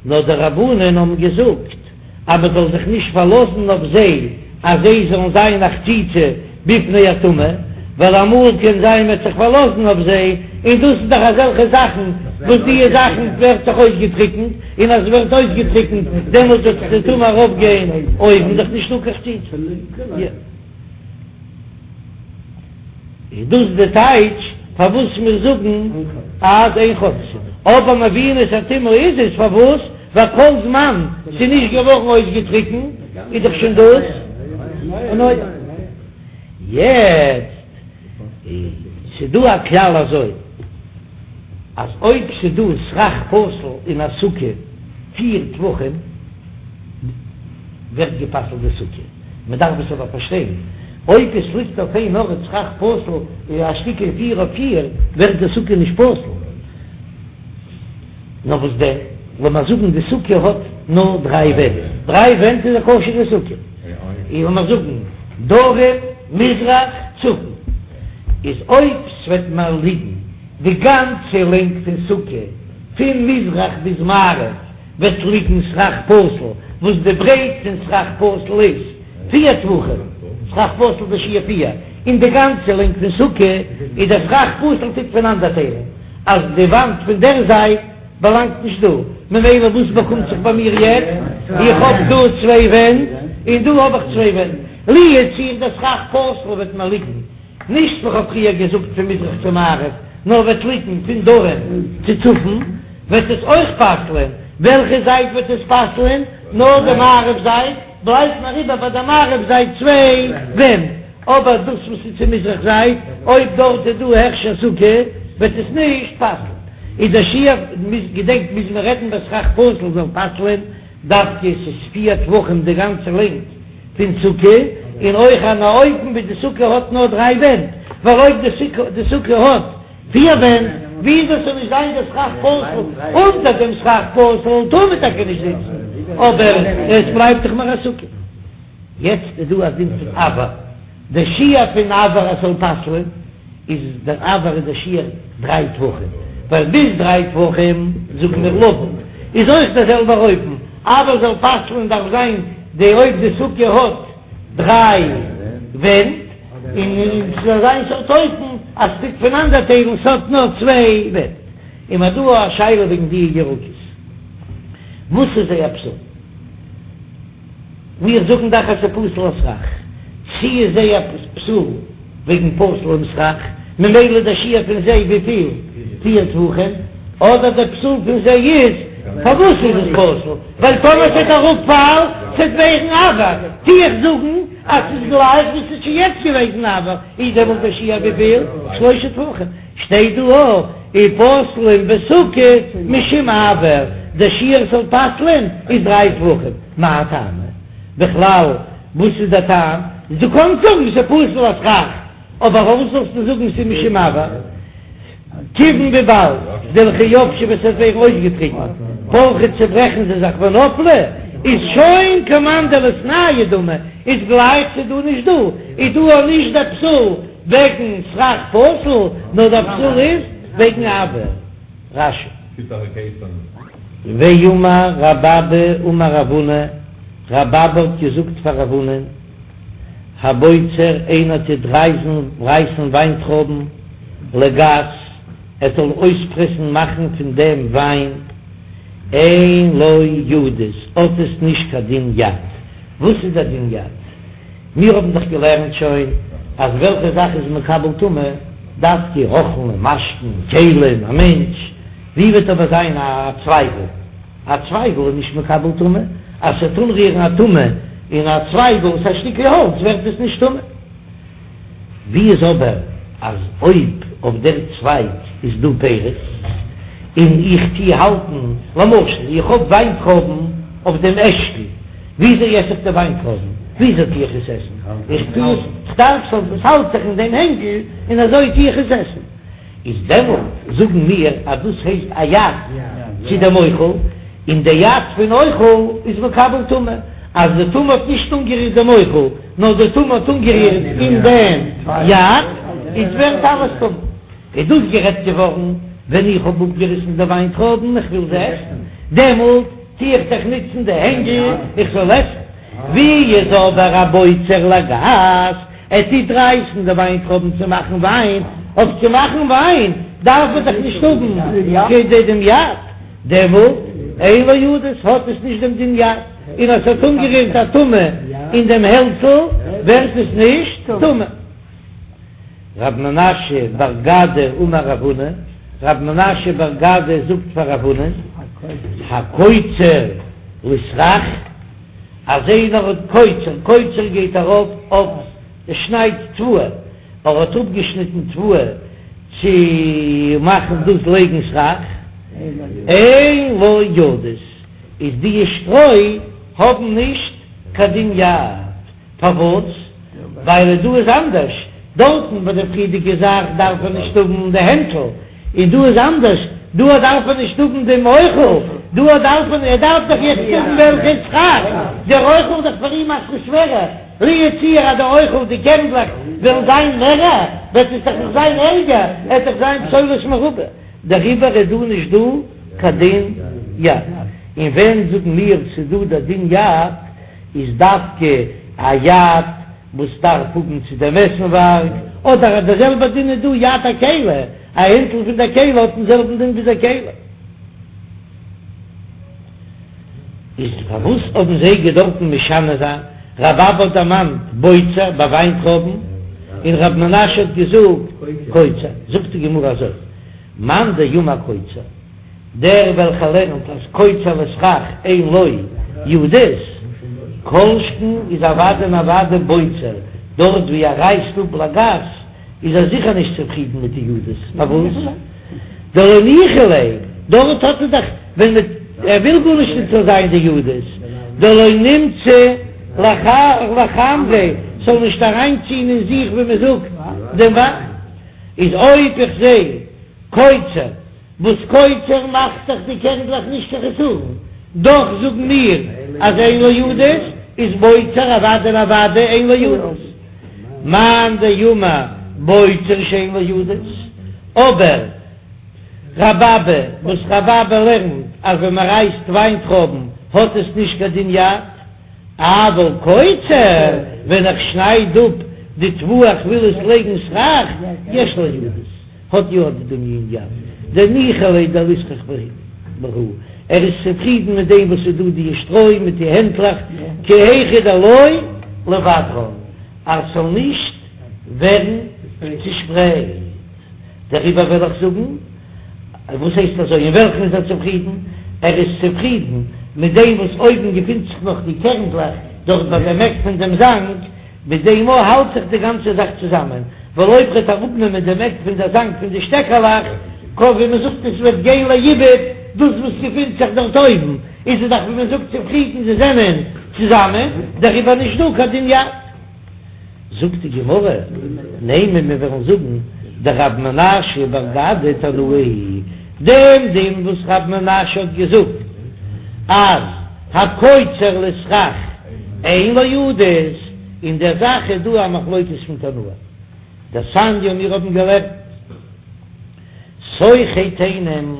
נאר די רבנן האבן געזאגט אז מען זאל זיך נישט פארלאזן אויף זיי אז זיי זאלן זיין א חציצה בפני הטומאה, ווייל אמאל קען זיין מען וועט זיך פארלאזן אויף זיי, און דאס איז דאך אזעלכע זאכן וואס די זאכן ווערט זיך אויסגעטריקנט, און אז עס ווערט אויסגעטריקנט דעמאלט וועט די טומאה ארויפגיין אויבן, דאך נישטא קיין חציצה. איז דאס די טייטש פארוואס מיר זאגן אז אין חוצצין, אבער מביאין את הטומאה איז עס פארוואס ווייל כל זמן ס'איז נישט געווארן אויסגעטריקנט איז דאך שוין דאס אן אוהל. יעצט ס'דא א כלל אזוי אז אויב ס'דא סכך פסול אין א סוכה פיר טפחים ווערט גע'פסל'ט די סוכה. מען דארף עס אבער פארשטיין, אויב עס ליגט אויף איין ארט סכך פסול א שטיקל פיר אויף פיר, ווערט די סוכה נישט פסול. נאר וואס דען, לאמיר זאגן די סוכה האט נאר דריי ווענט, דריי ווענט איז א כשר'ע סוכה, און לאמיר זאגן דרום, מזרח, צפון, איז אויב ס'וועט מיר ליגן די גאנצע לענג פון סוכה פון מזרח ביז מערב, וועט ליגן סכך פסול, וואס די ברייט פון סכך פסול איז פיר טפחים, סכך פסול די שיעור פיר, און די גאנצע לענג פון סוכה איז דער סכך פסול טוט פונאנדערטיילן אז די וואנט פון דער זייט באלאנגט נישט דא, ממילא וואס באקומט זיך ביי מיר יעצט? איך האב דא צוויי ווענט און דא האב איך צוויי ווענט, לו יצוייר דער סכך פסול וועט מיר ליגן נישט ווי כ'האב פריער געזאגט פון מזרח צו מערב, נאר וועט ליגן פון דרום צו צפון, וועט עס אויך פסל'ען, וועלכע זייט וועט עס פסל'ען? נאר די מערב זייט, בלייבט נאר איבער ביי די מערב זייט צוויי ווענט, אבער דאס וואס איז צו מזרח זייט, אויב דארט איז דא הכשר סוכה, וועט עס נישט פסל'ן. איז דער שיעור, געדענקט מוז מען רעדן ביי סכך פסול זאל פסל'ען, דווקא עס איז פיר טפחים די גאנצע לענג פון סוכה, און אויך אן אופן ווי די סוכה האט נאר דריי ווענט, ווייל אויב די סוכה האט פיר ווענט, ווי דאס זאל נישט זיין דער סכך פסול, אונטער דעם סכך פסול טאר מען טאקע נישט זיצן, אבער עס בלייבט דאך נאר א סוכה. יעצט איז דא א דין פון אויר, די שיעור פון אויר אז ס'זאל פסל'ען, איז דער אויר איז דער שיעור דריי טפחים, ווייל ביז דריי טפחים זאגן מיר לבוד, איז אויך דער זעלבער אופן, אויר זאל פסל'ען דארף זיין די אויב די סוכה האט דריי. ווענט, און ס'איז אזא סארט אופן אז ס'טוט פונאנדערטיילן, ס'האט נאר צוויי ווענט. און מ'האט דא א שאלה וועגן די ירקות, וואס איז זייער פסול? מיר זאגן דאך אז ס'איז פסול לסכך, צי איז זייער פסול וועגן פסול'ן סכך, ממילא דער שיעור פון זיי וויפיל? פיר טפחים, אדער דער פסול פון זיי איז, פארוואס איז עס פסול? ווייל טאמער ס'וועט אראפפאלן ס'וועט ווערן אויר, טו איך זאגן אז ס'איז גלייך ווי ס'איז שוין יעצט געוועזן אויר, איז דעמאלט דער שיעור וויפיל? שלושה טפחים. שטייט דא אויך ופוסלין בסוכה משום אויר, דער שיעור ס'זאל פסל'ען איז דריי טפחים, מאי טעמא? בכלל וואס איז דער טעם? דו קאנסט זאגן ס'איז פסול לסכך, אבער פארוואס זאלסטו זאגן ס'איז משום אויר? כיוון וויבאלד דלכי יבשו ווען ס'וועט ווערן אויסגעטריקנט פרכי צוברעכן זיי זיך ונפלי איז שוין כמאן דליתנהו דמי איז גלייך ס'איז דא נישט דא איז דא אויך נישט דער פסול וועגן סכך פסול, נאר דער פסול איז וועגן אויר. רש"י. ואמר רב אבא אמר רב הונא, רב אבא האט געזאגט פאר רב הונא, הבוצר איינער טוט רייזן רייסן וויינטרויבן לגת, ער זאל אויספרעסן מאכן פון דעם וויין, אין לו ידות, האט עס נישט קיין דין יד. וואס איז דער דין יד? מיר האבן דאך געלערנט שוין אז וועלכע זאך איז מקבל טומאה? דווקא אוכלים און משקין, כלים, א מענטש. ווי וועט אבער זיין א צווייגל? א צווייגל איז נישט מקבל טומאה, אז ס'וועט אנרירן א טומאה אין א צווייגל, ס'איז א שטיקל האלץ, ווערט עס נישט טמא. ווי איז אבער אז אויב אויף דער צווייג איז דא פירות און איך טוה האלטן, למשל איך האב וויינטרויבן אויף דעם אשכול, וויאזוי עס איך די וויינטרויבן? וויאזוי טוה איך עס עסן? איך טוה עס, כ'דארף ס'זאל, עס האלט זיך אין דעם הענגל און אזוי טוה איך עס עסן. איז דעמאלט זאגן מיר אז דאס הייסט א יד צו דעם אוכל, און די יד פון אוכל איז מקבל טומאה, אז די טומאה האט נישט אנגערירט דעם אוכל, נאר די טומאה האט אנגערירט אין דעם יד, איז ווערט אלעס טמא. איז דאס גערעדט געווארן ווען איך האב אפגעריסן די וויינטרויבן, איך וויל זיי עסן, דעמאלט טו איך דאך נוצן די הענגל איך זאל עסן. ווי איז אבער הבוצר לגת, ער טוט רייסן די וויינטרויבן צו מאכן וויין, אויף צו מאכן וויין דארף מען דאך נישט האבן כדי דעם יד, דעמאלט אין לו ידות האט עס נישט דעם דין יד, און אז ס'האט אנגערירט א טומאה אין דעם העלצל ווערט עס נישט טמא. רב מנשיא בר גדא אמר רב הונא, רב מנשיא בר גדא זאגט פאר רב הונא, הקוצר לסכך, אז איינער האט קוצר, קוצר גייט ארויף אויף ער שניידט תבואה, ער האט אפגעשניטן תבואה צו מאכן דאס לייגן סכך, אין לו ידות, איז די שטרוי האבן נישט קיין דין יד. פארוואס? ווייל דא איז אנדערש, דארטן ביי די פריערדיגע זאך דארף ער נישט האבן די הענטל, און דא איז אנדערש, דא דארף ער נישט האבן דעם אוכל, דא דארף ער, ער דארף דאך יעצט האבן וועלכע סכך, דער אוכל איז דאך פאר אים אסאך שווערער, לו יצוייר אז די אוכל, די קערנדלעך וועלן זיין מערער, וועט עס דאך נאך זיין ערגער, עס וועט דאך זיין פסולת מרובה, דעריבער איז דא נישט דא קיין דין יד, און ווען זאגן מיר ס'איז דא דער דין יד? איז דווקא א יד וואס דארף האבן צו דעם עסנווארג, אדער אז דער זעלבער דין איז דא יד הכלי, א הענטל פון דער כלי האט דעם זעלבן דין ווי דער כלי. איז פארוואס האבן זיי געדארפן משנה זיין? רב אבא האט דערמאנט בוצר ביי וויינטרויבן, און רב מנשיא האט געזאגט קוצר. זאגט די גמרא אזוי, מאן דאמר קוצר. דער וועלכער לערנט אז קוצר לסכך אין לו ידות, כל שכן איז אוודאי און אוודאי בוצר, דארט ווי ער רייסט אפ לגת איז ער זיכער נישט צופרידן מיט די ידות, פארוואס? דלא ניחא ליה, דארט האט ער דאך ווען מען ער וויל גארנישט נישט זאל זיין די ידות, דלא נמצי לחמריה, ס'זאל נישט אריינציען אין זיך ווי מען זאגט דעם וויין, איז אויב איך זע קוצר. וואס קוצר מאכט דאך די קערנדלעך נישט קיין חסרון, דאך זאגן מיר אז אין לו ידות איז בוצר אוודאי און אוודאי אין לו ידות. מאן דאמר בוצר שאין לו ידות, אבער רב אבא וואס רב אבא לערנט אז ווען מען רייסט וויינטרויבן האט עס נישט קיין דין יד, אבל קוצר, ווען איך שנייד אפ. די תבואה איך וויל עס לייגן סכך, יש לה ידות, האט יא די דין יד, דניחא ליה דליסכך בהו, ער איז צופרידן מיט דעם וואס איז דא די שטרוי מיט די הענטלעך, כי היכי דלא ליבדרן, אז ס'זאל נישט ווערן צושפרייט. דעריבער וועל איך זאגן, וואס הייסט אזוי, אין וועלכן איז ער צופרידן? ער איז צופרידן מיט דעם וואס אויבן געפינט זיך נאך די קערנדלעך דארט ביי דעם עק פון דעם זאנג, מיט דעם אויך האלט זיך די גאנצע זאך צוזאמען, ווייל אויב ר'עט אראפנעמען דעם עק פון דער זאנג פון די שטעקעלעך, קען ווי מ'זאגט עס וועט גיין לאיבוד דאס וואס געפינט זיך דארט אויבן, איז ער דאך ווי מ'זאגט צופרידן זיי זענען צוזאמען, דעריבער נישט דא קיין דין יד. זאגט די גמרא, נימא מיר וועלן זאגן דרב מנשיא בר גדא תנאי היא, דעם דין וואס רב מנשיא האט געזאגט אז הקוצר לסכך אין לו ידות, אין דער זאך איז דא א מחלוקת פון תנאים, דתניא מיר האבן געלערנט שוכי תאנים,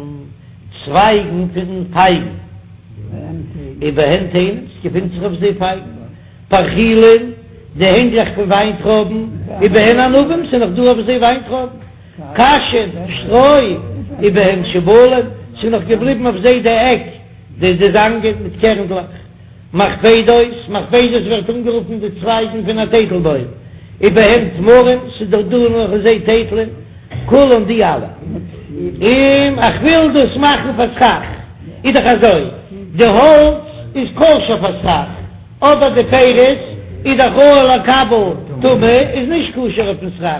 צווייגן פון פייגן, ובהן תאנים, ס'געפינט זיך אויף זיי פייגן. פרחילין, די הענגלעך פון וויינטרויבן, ובהן ענבים, ס'איז נאך דא אויף זיי וויינטרויבן, קשין, שטרוי, ובהן שיבולים, ס'איז נאך געבליבן אויף זיי די עק, די די זאנגען מיט קערנדלעך. מכבדות, מכבדות ווערט אנגערופן די צווייגן פון א טייטלבוים, ובהן תמרים, ס'איז דאך דא נאך אויף זיי טייטלען, כולן די אלע. און איך וויל דאס מאכן פאר סכך, איז דאך אזוי, די האלץ איז כשר פאר סכך, אבער די פירות איז דאך ראוי לקבל טומאה איז נישט כשר אויפן סכך,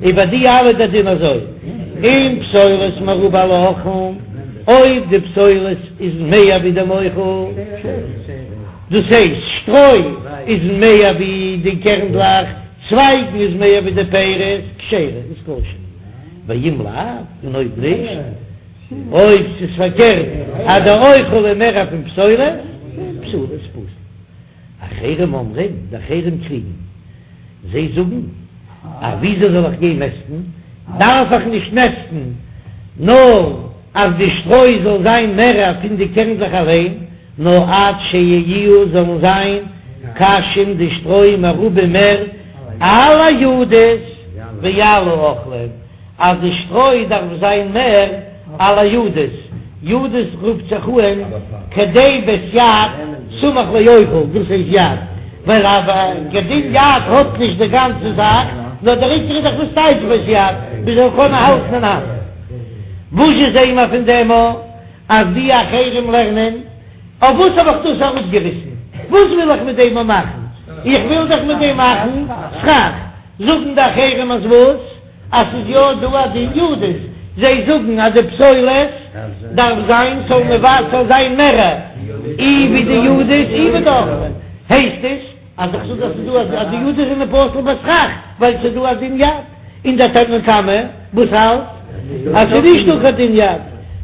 איז ביי די אלע דער דין אזוי, אם פסולת מרובה על האוכלין, אויב די פסולת איז מער ווי דעם אוכל, דאס הייסט שטרוי איז מער ווי די קערנדלעך, צווייגן איז מער ווי די פירות, כשרה איז כשר, ואם לאו, און אויב נישט. אויב ס'איז פארקערט אז די אוכל איז מער פון פסולת, פסולה איז פסול. אחרים אומרים, די אחרים קריגן, זיי זאגן אז וויאזוי זאל איך גיין מעסטן, דארף איך נישט מעסטן נאר אז די שטרוי זאל זיין מער פון די קערנדלעך אליין, נאר עד שיהיו זאלן זיין קשים די שטרוי מרובים מער על הידות ועל האוכלים. אז די שטרוי דארף זיין מער על הידות, ידות רופט זיך אהן כדי בית יד סמוך לאוכל, דאס הייסט יד, ווייל א דין יד האט נישט די גאנצע זאך, נאר דער עיקר איז דאך וואס טייטש בית יד, מען זאל קענען האלטן אין האנט. וואס זשע זעהן מיר פון דעם א אז די אחרים לערנען? אויף וואס האב איך דאס אראפגעריסן? וואס וויל איך מיט דעם מאכן? איך וויל דאך מיט דעם מאכן סכך. זאגן די אחרים אז וואס? אז ס'איז יא דא א דין ידות, זיי זאגן אז די פסולת דארף זיין ס'זאל מבטל זיין מער אי ווי די ידות אי ווי די אוכלים, הייסט עס אז איך זאג אז ס'איז דא אז די ידות זענען פסול בסכך ווייל ס'איז דא א דין יד, און דער תנא קמא וואס האלט אז ס'איז נישט דא קיין דין יד,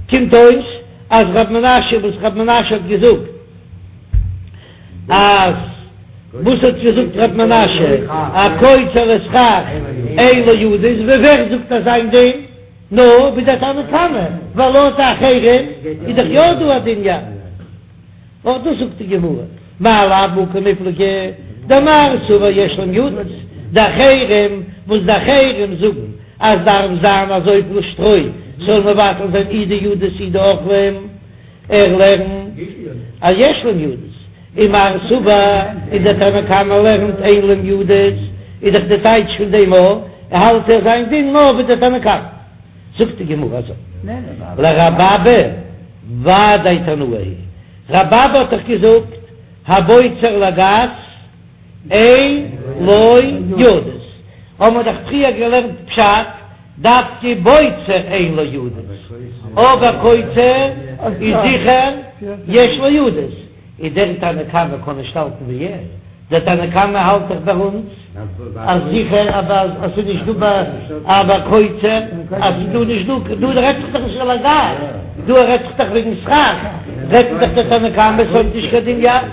קומט אויס אז ר' מנשיא וואס ר' מנשיא האט געזאגט אז וואס האט געזאגט ר' מנשיא הקוצר לסכך אין לו ידות, ווי ווער זאגט אזא דין? נאר ווי דער תנא קמא, ווייל לויט די אחרים איז דאך יא דא א דין יד. אויך דאס זאגט די גמרא, מאי לאו בהא קמיפלגי דמר סבר יש להם ידות, די אחרים וואס די אחרים זאגן אז דארף זיין אזויפיל שטרוי ס'זאל מבטל זיין אי די ידות אי די אוכלים, ער לערנט אז יש להם ידות, און מר סבר און דער תנא קמא לערנט אין להם ידות, איז דאך די טייטש פון דעם א, האלט ער זיין דין נאר ווי דער תנא קמא. זאגט די גמרא אזוי, לרבי אבא ודאי תנאי היא, רבי אבא האט דאך געזאגט הבוצר לגת אין לו ידות, האבן מיר דאך פריער געלערנט פשט, דווקא בוצר אין לו ידות, אבער קוצר איז זיכער יש לו ידות, איז דער תנא קמא קען נישט האלטן ווי ער, דער תנא קמא האלט דאך ביי אונז אז זיכער אז עס איז נישט דא ביי א ביי קוצר אז ס'איז דא נישט דא, דא רעדט זיך דאך נישט על הגת, דא רעדט זיך דאך וועגן סכך, רעדט דאך דער תנא קמא ס'האט נישט קיין דין יד.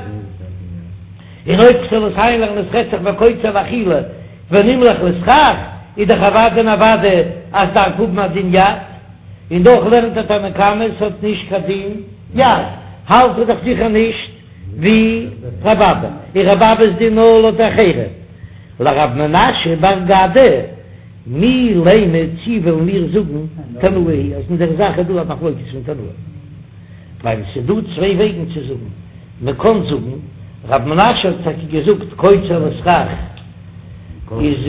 און אויב כ'זאל עס איינלערנען עס רעדט זיך ביי קוצר לאכילה ונמלך לסכך, איז דאך אוודאי און אוודאי אז ס'דארף האבן א דין יד, און דאך לערנט דער תנא קמא ס'האט נישט קיין דין יד, האלט ער דאך זיכער נישט ווי רבי אבא, און רבי אבא'ס דין נאר לויט אחרים. לרב מנשיא בר גדא, מי לימא צי וועלן מיר זאגן תנאי היא אז אין דער זאך איז דא א מחלוקת פון תנאים, ווייל עס איז דא צוויי וועגן צו זאגן, מען קען זאגן, רב מנשיא האט טאקע געזאגט קוצר לסכך איז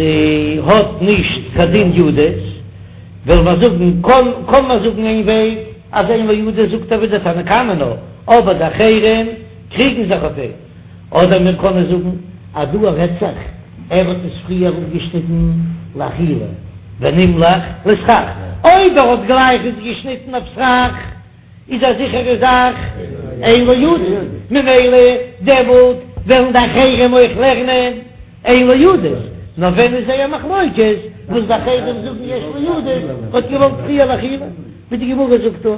האט נישט קיין דין ידות, וועלן מיר זאגן, קען מען זאגן איין וועג אז אין לו ידות זאגט ער ווי דער תנא קמא נאר, אבער די אחרים קריגן זיך אויף אים. אדער מיר קענען זאגן אז דא רעדט זיך ער האט עס פריער אפגעשניטן לאכילה ונמלך לסכך, אויב ער האט גלייך עס געשניטן אויף סכך איז א זיכערע זאך אין לו ידות, ממילא דעמאלט וועלן די אחרים אויך לערנען אין לו ידות, נאר ווען איז זייער מחלוקת וואס די אחרים זאגן יש לו ידות האט געוואלט פריער לאכילה, ווי די גמרא זאגט דא.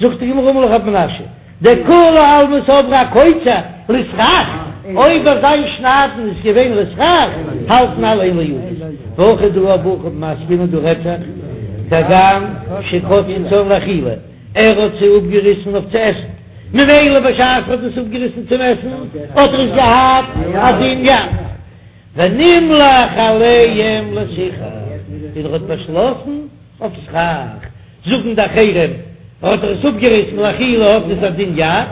זאגט די גמרא אמר לך רב מנשיא, דכולי עלמא סברי הקוצר לסכך, אויב אז זיין שניידן איז געווען לסכך, האלטן אלע אין לו ידות, והכא דא בהכי עסקינן דא רעדט זיך, כגון שקצצן לאכילה, ער האט זיי אפגעריסן אויף צו עסן, ממילא בשעת ער האט עס אפגעריסן צום עסן האט ער עס געהאט א דין יד, ונמלך עליהם לסיכך, און ער האט באשלאסן אויף סכך. זאגן די אחרים האט ער עס אפגעריסן לאכילה האט עס א דין יד,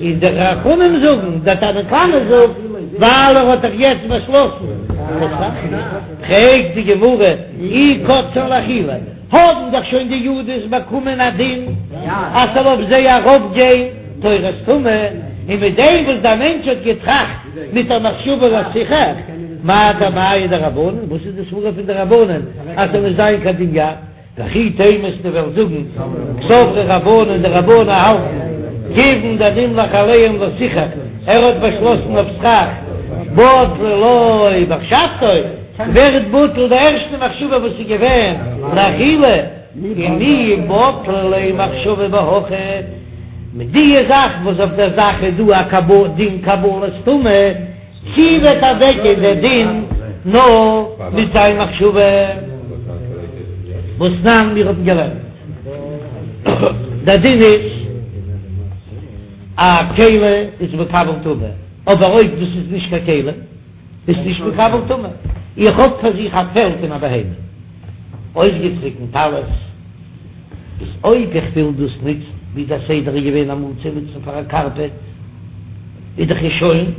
און די חכמים זאגן, דער תנא קמא זאגט, ווייל ער האט דאך יעצט באשלאסן לסכך. פרעגט די גמרא, אי קצצן לאכילה, האבן דאך שוין די ידות באקומען א דין אז ס'זאל אויף זיי ארויפגיין תורת טומאה, און מיט דעם וואס דער מענטש האט געטראכט מיט א מחשבה לסיכך, מאי טעמייהו דרבנן, וואס איז די סברא פון די רבנן אז ס'זאל נישט זיין קיין דין יד? וכי תימא וועסטו וועלן זאגן קסברי רבנן די רבנן האלטן כיוון דנמלך עליהם לסיכך ער האט באשלאסן אויף סכך בטלה לו מחשבתו ווערט בטל די ערשטע מחשבה וואס איז געווען לאכילה און מי בטלה ליה מחשבה בהכי מיט די זאך וואס אויף דער זאך איז דא א דין קבלת טומאה. צי וועט אוועקגיין דער דין נאר מיט זיין מחשבה? והתנן מיר האבן געלערנט דער דין איז א כלי איז מקבל טומאה, אבער אויב דאס איז נישט קיין כלי איז נישט מקבל טומאה. איך האב פאר זיך א פעל פון א בהמה אויסגעטריקנט אלעס, איז אויב איך וויל דאס נוצן ווי דער סדר איז געווען אמאל צו נוצן פאר א קארפעט, איז דאך עס שוין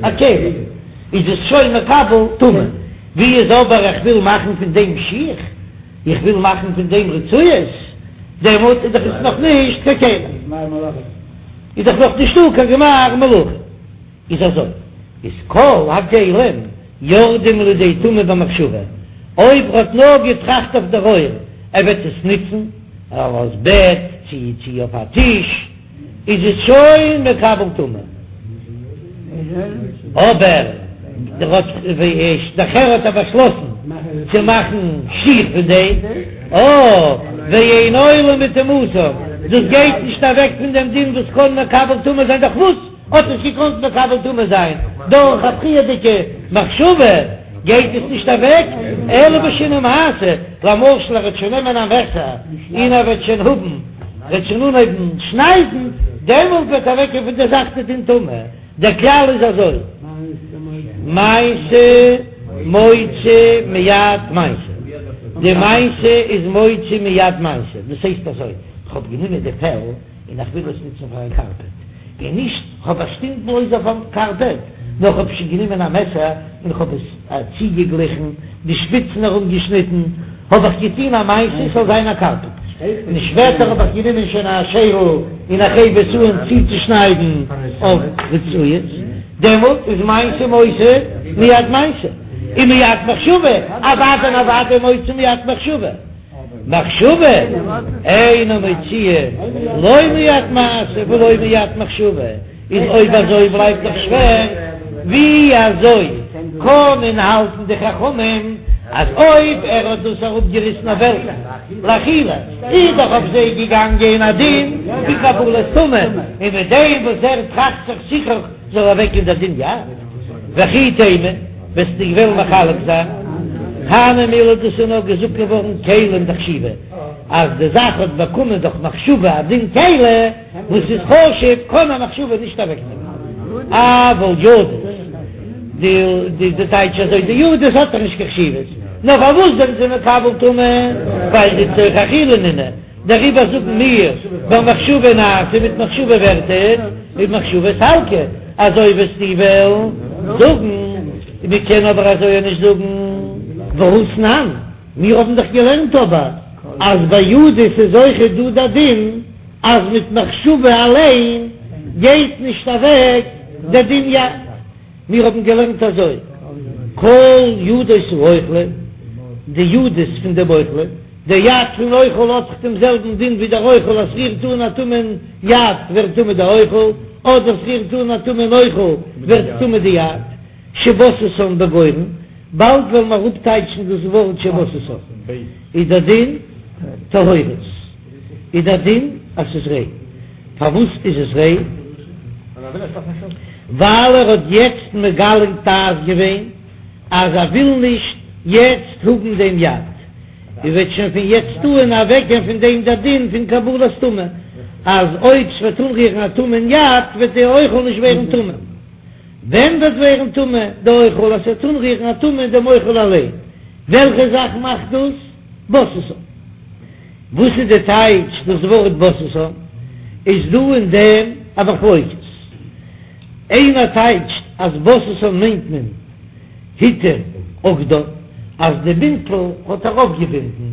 א כלי, איז עס שוין מקבל טומאה. ווי איז אבער איך וויל מאכן פון דעם שיך, איך וויל מאכן פון דעם רצועות, דעמאלט איז דאך עס נאך נישט קיין כלי, איז דאך נאך נישטא קיין גמר מלאכה. איז אזוי, איז כל הכלים יורדים לידי טומאה במחשבה, אויב ער האט נאר געטראכט אויף דער עור ער וועט עס נוצן אלס בעט צי צי אויף א טיש, איז עס שוין מקבל טומאה, אבער דער האט נאכער האט ער באשלאסן צו מאכן שיך פון דעם, אה, ואין עולה מטומאתם, דאס גייט נישט אוועק פון דעם דין וואס קען מקבל טומאה זיין דורך וואס? האט עס געקאנט מקבל טומאה זיין דורך א פריערדיגע מחשבה, גייט עס נישט אוועק, אלא בשינוי מעשה, למשל ער וועט שוין נעמען א מעסער און ער וועט שוין האבן, וועט שוין אנהויבן שניידן, דעמאלט וועט אוועקגיין פון דער זאך די דין טומאה, דער כלל איז אזוי, מעשה מוציא מיד מעשה, די מעשה איז מוציא מיד מעשה, דאס הייסט אזוי, כ'האב גענומען די פעל און איך וויל עס נוצן פאר א קארפעט, און נישט כ'האב באשטימט בלויז אויף א קארפעט, נאר כ'האב שוין גענומען א מעסער און כ'האב עס צוגעגליכן, די שפיצן ארומגעשניטן, האב איך געטון א מעשה ס'זאל זיין א קארפעט, און שפעטער האב איך גענומען שוין א שערל און איך הייב עס אן צוצושניידן אויף רצועות, דעמאלט איז מעשה מוציא מיד מעשה, און מיד מחשבה, אוודאי און אוודאי מוציא מיד מחשבה. מחשבה אינה מוציאה לא מיד מעשה ולא מיד מחשבה, איז אויב אזוי בלייבט דאך שווער, ווי אזוי קענען האלטן די חכמים אז אויב ער האט דאס אראפגעריסן אויף וועלקע לאכילה איז דאך אויף זיי געגאנגען א דין פון קבלת טומאה, און מיט דעם וואס ער טראכט זיך סיכוך זאל אוועקגיין דער דין יד, וכי תימא, וועסטו וועלן מחלק זיין, הני מילי דאס איז נאר געזאגט געווארן כלים דחשיבי, אז די זאך האט באקומען דורך מחשבה א דין כלי וואס איז חשוב, קען א מחשבה נישט אוועקנעמען, אבל ידות. די די טייטש אזוי די ידות האט דאך נישט קיין חשיבות, נאר פארוואס זענען זיי מקבל טומאה? ווייל דלצורך אכילה נינהו, דעריבער זאגן מיר במחשבה נעשה מיט מחשבה ווערט עס, ובמחשבה סלקא, אזוי וועסטו וועלן זאגן, מען קען אבער אזוי נישט זאגן. והתנן, מיר האבן דאך געלערנט אבער אז ביי ידות איז אויכעט דא דער דין אז מיט מחשבה אליין גייט נישט אוועק דער דין יד. מיר האבן געלערנט אזוי, כל ידות האוכלין, די ידות פון דעם אוכלין, דער יד פון אוכל האט דאך דעם זעלבן דין ווי דער אוכל, אז ס'רירט אן א טמא'ן יד ווערט טמא דער אוכל, אדער ס'רירט אן א טמא'ן אוכל ווערט טמא די יד. שבססן בגורן, באלד וועלן מיר אראפטייטשן דאס ווארט שבססן, איז דער דין טהורות, איז דער דין אז ס'איז ריין. פארוואס איז עס ריין? ווייל ער האט יעצט מגלה דעת געווען אז ער וויל נישט יעצט האבן דעם יד, און וועט שוין פון יעצט אן אוועקגיין פון דעם דער דין פון קבלת טומאה, אז אויב ס'וועט אנרירן א טמא'ן יד וועט די אוכל נישט ווערן טמא. ווען וועט ווערן טמא די אוכל אז ס'וועט אנרירן א טומאה אין דעם אוכל אליין? וועלכע זאך מאכט דאס בססן? וואס איז די טייטש דאס ווארט בססן? איז דא אין דעם א מחלוקת. איינער טייטשט אז בססן מיינט מען התיר אגדן, אז די בינטל האט ער אויפגעבינדן,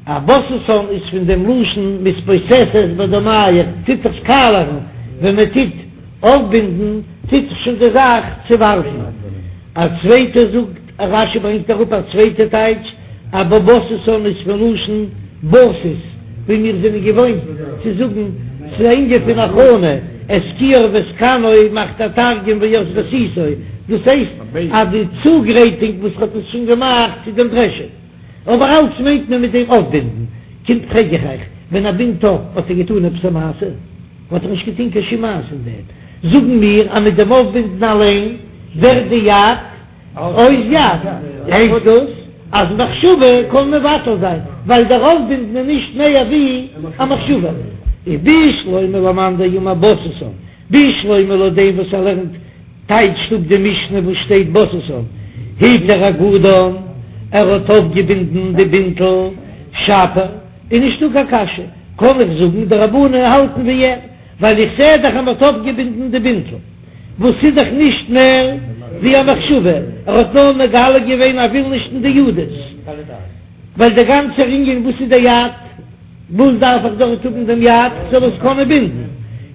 א בססן איז פון דעם לשון מתבוססת בדמיך, טוט זיך קאלערן, ווען מען טוט אויפבינדן טוט זיך שוין די זאך צעווארפן. א צווייטער זאגט, רש"י ברענגט אראפ א צווייטע טייטש, אז בססן איז פון לשון בסיס, ווי מיר זענען געוואוינט צו זאגן, ס'איז א ענין פון הכנה, את כיור ואת כנו מאכט א תרגום וית רסיסו, דאס הייסט אז די צוגרייטונג וואס האט עס שוין געמאכט צו דעם דרעשען. אבער אלץ מיינט מען מיט דעם אויפבינדן. קומט פרעג איך אייך, ווען ער בינדט אויף האט ער געטאן עפעס א מעשה? האט ער נישט געטון קיין שום מעשה אין דעם. זאגן מיר אז מיט דעם אויפבינדן אליין ווערט די יד אויס יד. הייסט דאס אז מחשבה קען מבטל זיין, ווייל דער אויפבינדן איז נישט מער ווי א מחשבה. איז בשלמא למאן דאמר בססן, בשלמא לויט דעם וואס ער לערנט טייטשט אפ די משנה וואס שטייט בססן התיר אגודן, ער האט אויפגעבינדן די בינטל שפיר, איז נישטא קיין קשיא, קען איך זאגן די רבנן האלטן ווי ער, ווייל איך זע דאך אז מען האט אויפגעבינדן די בינטל, וואס איז דאך נישט מער ווי א מחשבה, ער האט נאר מגלה געווען ער וויל נישט אין די ידות, ווייל דער גאנצער ענין וואס איז די יד? וואס דארף איך דארט האבן דעם יד כ'זאל עס קענען בינדן?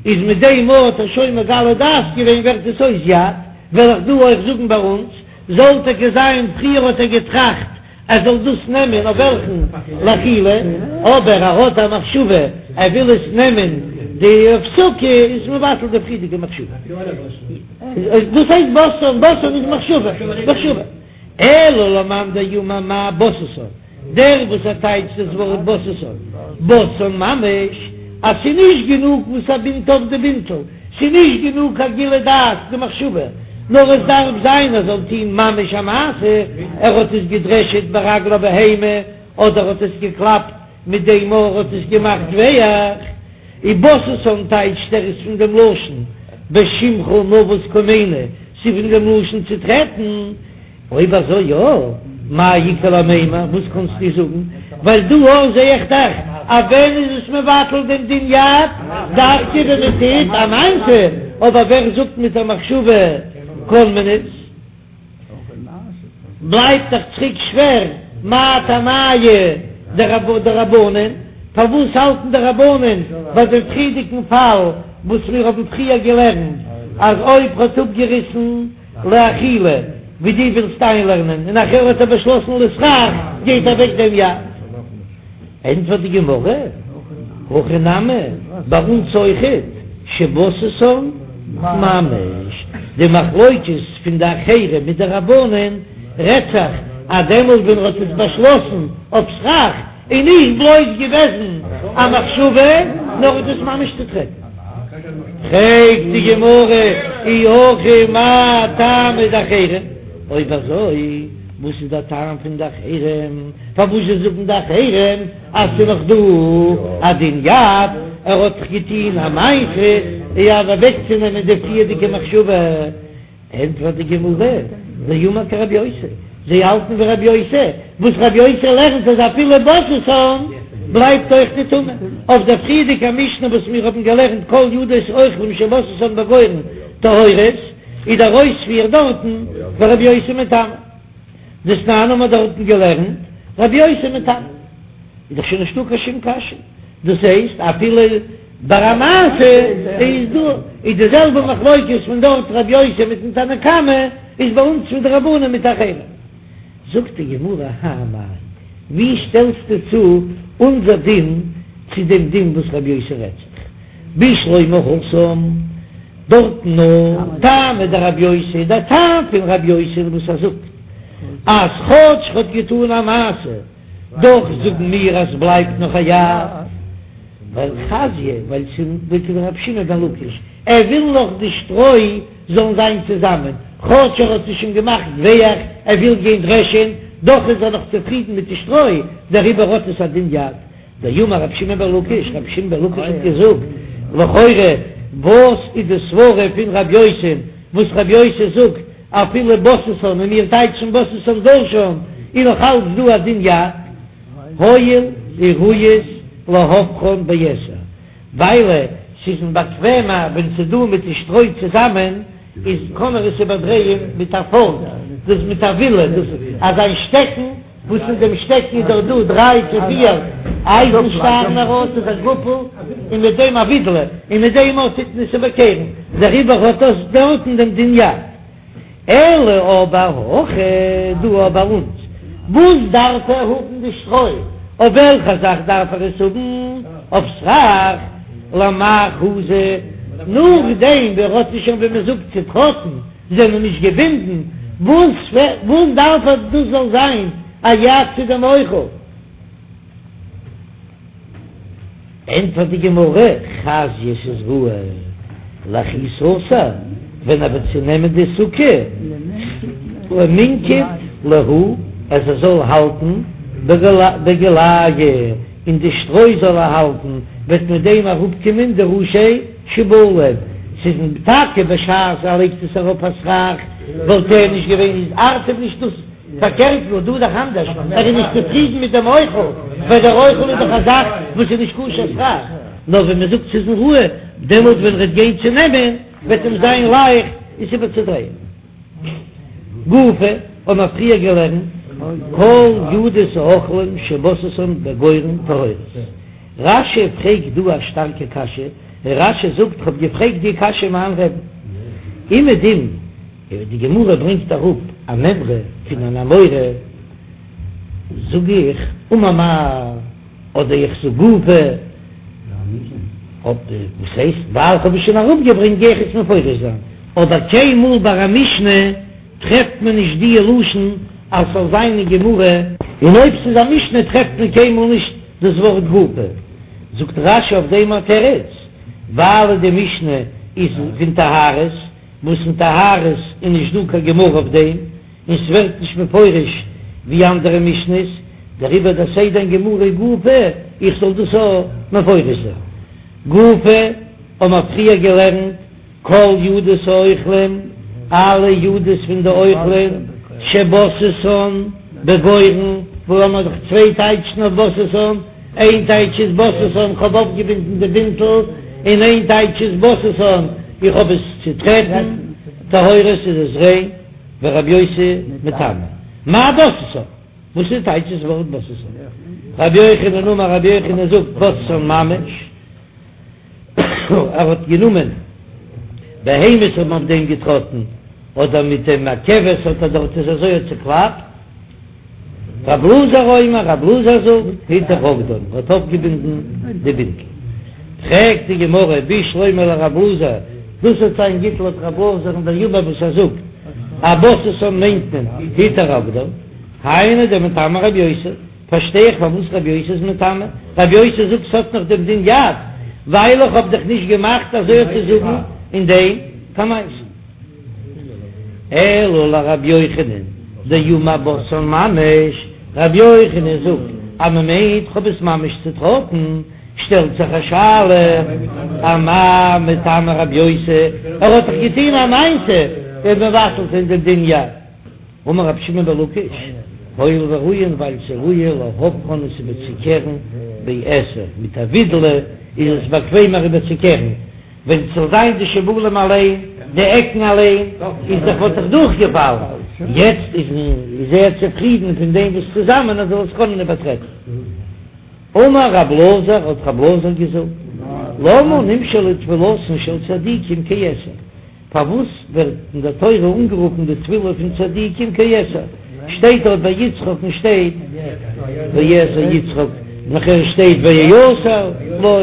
איז מיט דעם האט ער שוין מגלה דעת געווען ווערט עס אויס יד, וועל איך דא אויך זאגן ביי אונז, זאל טאקע זיין פריער האט ער געטראכט ער זאל דאס נעמען אויף וועלכן לאכילה, אבער ער האט א מחשבה ער וויל עס נעמען די אויף סוכה איז מבטל די פריערדיגע מחשבה. דאס הייסט בססן, בססן איז מחשבה, מחשבה. אלא למאן דאמר מאי בססן, דער וואס ער טייטשט דאס ווארט בססן, בססן ממש, אז ס'איז נישט גענוג וואס ער בינדט אויף די בינטל, ס'איז נישט גענוג א גילוי דעת די מחשבה, נאר עס דארף זיין ער זאל טון ממש א מעשה, ער האט עס געדרעשעט ברגלי בהמה, אדער האט עס געקלאפט מיט דעם ער האט עס געמאכט ווייך. ובססן טייטשט ער איז פון דעם לשון בשמך נבוס קומינו, ס'איז פון דעם לשון צו טרעטן. אויב אזוי יא, מאי איכא למימר, וואס קאנסטו זאגן? ווייל דא אויך זע איך דאך אז ווען איז עס מבטל דעם דין יד, דווקא ווען מען טוט א מעשה, אבער ווער זאגט מיט א מחשבה קען מען עס? בלייבט דאך צוריק שווער, מאי טעמייהו דרבנן, פארוואס האלטן די רבנן ביי דעם פריערדיגן פאל וואס מיר האבן פריער געלערנט אז אויב ר'האט אפגעריסן לאכילה ווי דו ווילסט איינלערנען און נאכער האט ער באשלאסן לסכך גייט אוועק דעם יד? ענטפערט די גמרא, הכא נמי, ביי אונז אויכעט, שבססן ממש, די מחלוקת פון די אחרים מיט די רבנן רעדט זיך אז דעמאלט ווען ער האט עס באשלאסן אויף סכך איז נישט בלויז געוועזן א מחשבה נאר האט עס ממש צוטרעטן. פרעגט די גמרא, אי הכי מאי טעמא דאחרים, אויב אזוי וואס איז דער טעם פון די אחרים? פארוואס זאגן די אחרים אז ס'איז נאך דא א דין יד? ער האט דאך געטון א מעשה אויף אוועקצונעמען די פריערדיגע מחשבה. ענטפערט די גמרא, דאמר כרבי יוסי, זיי האלטן ווי רבי יוסי, וואס רבי יוסי לערנט אז אפילו בססן בלייבט אויך די טומאה. אויף דער פריערדיגער משנה וואס מיר האבן געלערנט כל ידות אוכלים שבססן בגורן טהורות, איז דער אויספיר דארטן ורבי יוסי מטמא. דתנן האבן מיר דארטן געלערנט רבי יוסי מטמא. איז דאך שוין נישטא קיין שום קשיא. דאס הייסט אפילו ביי א מעשה איז דא איז די זעלבע מחלוקת פון דארט רבי יוסי מיטן תנא קמא איז ביי אונז פון די רבנן מיט אחרים. זאגט די גמרא האי מאי, ווי שטעלסטו צו אונזער דין צו דעם דין וואס רבי יוסי רעדט זיך בשלמא התם דארטן נאר טעמא דרבי יוסי דער טעם פון רבי יוסי וואס ער זאגט אז כאטש ר'האט געטאן א מעשה דאך זאגן מיר אז ס'בלייבט נאך א יד, ווייל חזיא, ווייל ס'איז כדרבי שמעון בן לקיש, ער וויל נאך די שטרוי זאלן זיין צוזאמען, כאטש ער האט עס שוין געמאכט ווייך, ער וויל גיין דרעשען, דאך איז ער נאך צופרידן מיט די שטרוי, דעריבער האט עס א דין יד. דאמר רבי שמעון בן לקיש, רבי שמעון בן לקיש האט געזאגט, לכאורה וואס איז די סברה פון רבי יוסי, וואס רבי יוסי זאגט, אפילו בססן און מיר טייטשן בססן דשן איז נאך אלץ דא א דין יד, הואיל וראויות להופכן בעשר, ווייל ס'איז אים באקוועמער ווען ס'איז דא מיט די שטרוי צוזאמען, איז קען ער עס איבערדרייען מיט א פארק, דאס מיט א ווילע, דאס אזא שטעקן, וואס אין דעם שטעקן איז דאך דא דריי צו פיר אייזן שטארן ארויס איז א גאפל, און מיט דעם א ווידלע, און מיט דעם אויך טוט מען עס איבערקערן, דעריבער האט דאס דארטן דעם דין יד. אלא אבער הכא דא ביי אונז, וואס דארף ער האבן די שטרוי? אויף וועלכע זאך דארף ער עס האבן? אויף סכך? למאי חזי? נאכדעם ווי ער האט עס שוין ווי מען זאגט צוטראטן, זענען נישט געבינדן, וואס וואס דארף ער דאס זאל זיין א יד צו דעם אוכל? ענטפערט די גמרא, חזיא ס'איז ראוי לכי סתר, ווען ער וועט צונעמען די סוכה, למינקט להו, אז ער זאל האלטן בגילייהו, אין די שטרוי זאל ער האלטן, וועט מיט דעם אראפקומען די ראשי שיבולים, ס'איז טאקע בשעת ער לייגט עס ארויף א סכך וואלט ער נישט געווען איז ארט אים נישט דאס, פארקערט נאר דא איז דאך אנדערש, ער איז נישט צופרידן מיט דעם אוכל, ווייל דער אוכל איז דאך א זאך וואס איז נישט כשר סכך, נאר ווען מען זאגט ס'איז אים ראוי, דעמאלט ווען ער וועט גיין צו נעמען וועט אים זיין לייכט עס איבערצודרייען. גופא האבן מיר פריער געלערנט כל ידות האוכלים שבססן בגורן טהורות. רש"י פרעגט דא א שטארקע קשיא, און רש"י זאגט כ'האב געפרעגט די קשיא מיין רבי'ן אומעדום די גמרא ברענגט אראפ א מימרא פון אן אמורא, זאג איך אמר מר אדער איך זאג גופא, וואס הייסט ווייל כ'האב עס שוין אראפגעברענגט גיי איך עס מפרש זיין, אבער קיינמאל ביי א משנה טרעפט מען נישט די לשון אז ס'זאל זיין אין גמרא, און אויב ס'איז א משנה טרעפט מען קיינמאל נישט דאס ווארט גופא. זאגט רש"י אויף דעם א תירוץ, ווייל די משנה איז פון טהרות, וואס אין טהרות איז נישט דא קיין גמרא אויף דעם, און ס'ווערט נישט מפורש ווי אנדערע משנות, דעריבער דער סדר אין גמרא גופא, איך זאל דאס אויך מפרש זיין. גופא האבן מיר פריער געלערנט כל ידות האוכלים, אלע ידות פון די אוכלים, שבססן בגורן, וואו האבן מיר דאך צוויי טייטשן אויף בססן, איין טייטש איז בססן כ'האב אויפגעבינדן די בינטל, און איין טייטש איז בססן איך האב עס צוטרעטן, טהורות איז עס ריין, ורבי יוסי מטמא. מאי בססן? וואס איז טייטש דאס ווארט בססן? רבי יוחנן אמר רבי יוחנן זאגט בססן ממש. ער האט גענומען בהמות האבן אויף דעם געטראטן, אדער מיט דעם א כבש האט ער דארט עס אזוי האט צוקלאפט. רב אלעזר אומר, רב אלעזר זאגט, היתך אגודן, ער האט אויפגעבינדן די בינטל. פרעגט די גמרא, בשלמא לרב אלעזר, דאס וועט זיין גוט לויט רב אלעזר'ן דאמר וואס ער זאגט, אז בססן מיינט מען היתך אגודן, היינו דמטמא רבי יוסי. פארשטיי איך פארוואס רבי יוסי איז מטמא, רבי יוסי זאגט ס'האט נאך דעם דין יד, ווייל איך האב דאך נישט געמאכט אזוי אויף צו זאגן אין דעם קיין מעשה. אלא לרבי יוחנן דאמר בססן ממש, רבי יוחנן זאגט אז מ'מיינט כ'האב עס ממש צוטראטן, שטעלט זיך א שאלה, אמאי מטמא רבי יוסי, ער האט דאך געטון א מעשה? מבטל זיין דעם דין יד. אמר רבי שמעון בן לקיש, הואיל וראויין ווייל ס'איז ראוי להופכן עס איבערצוקערן בעתר, מיט א ווידלע איז עס באקוועמער איבערצוקערן, ווען ס'זאל זיין די שיבולים אליין, די עקן אליין, איז דאך וואלט דאך דורכגעפאלן, יעצט איז איז ער צופרידן פון דעם וואס צוזאמען אז ער זאל עס קענען איבערטרעטן. אמר רב אלעזר, האט רב אלעזר געזאגט, למה נמשלה תפילתן של צדיקים כעתר? פארוואס ווערט אין דער תורה אנגערופן די תפילה פון צדיקים כעתר? שטייט דארט ביי יצחק'ן שטייט ויעתר יצחק, נאכער שטייט ויעתר לו,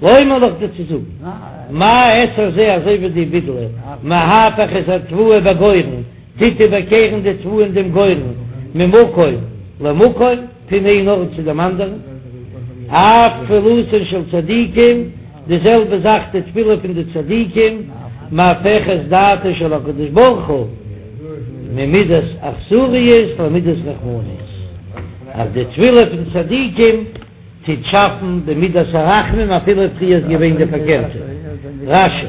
לומר לך דיר צו זאגן, מה עתר זה אזוי ווי די ווידלע, מהפך את התבואה בגורן, טוט איבערקערן די תבואה אין דעם גורן ממקום למקום, פון איין ארט צו דעם אנדערן, אף תפילתן של צדיקים, די זעלבע זאך די תפילה פון די צדיקים, מהפכת דעתו של הקדוש ברוך הוא ממידת אכזריות למידת רחמנות, אז די תפילה פון צדיקים טוט שאפן די מידת הרחמים אפילו פריער איז געווען די פארקערטע. רש"י.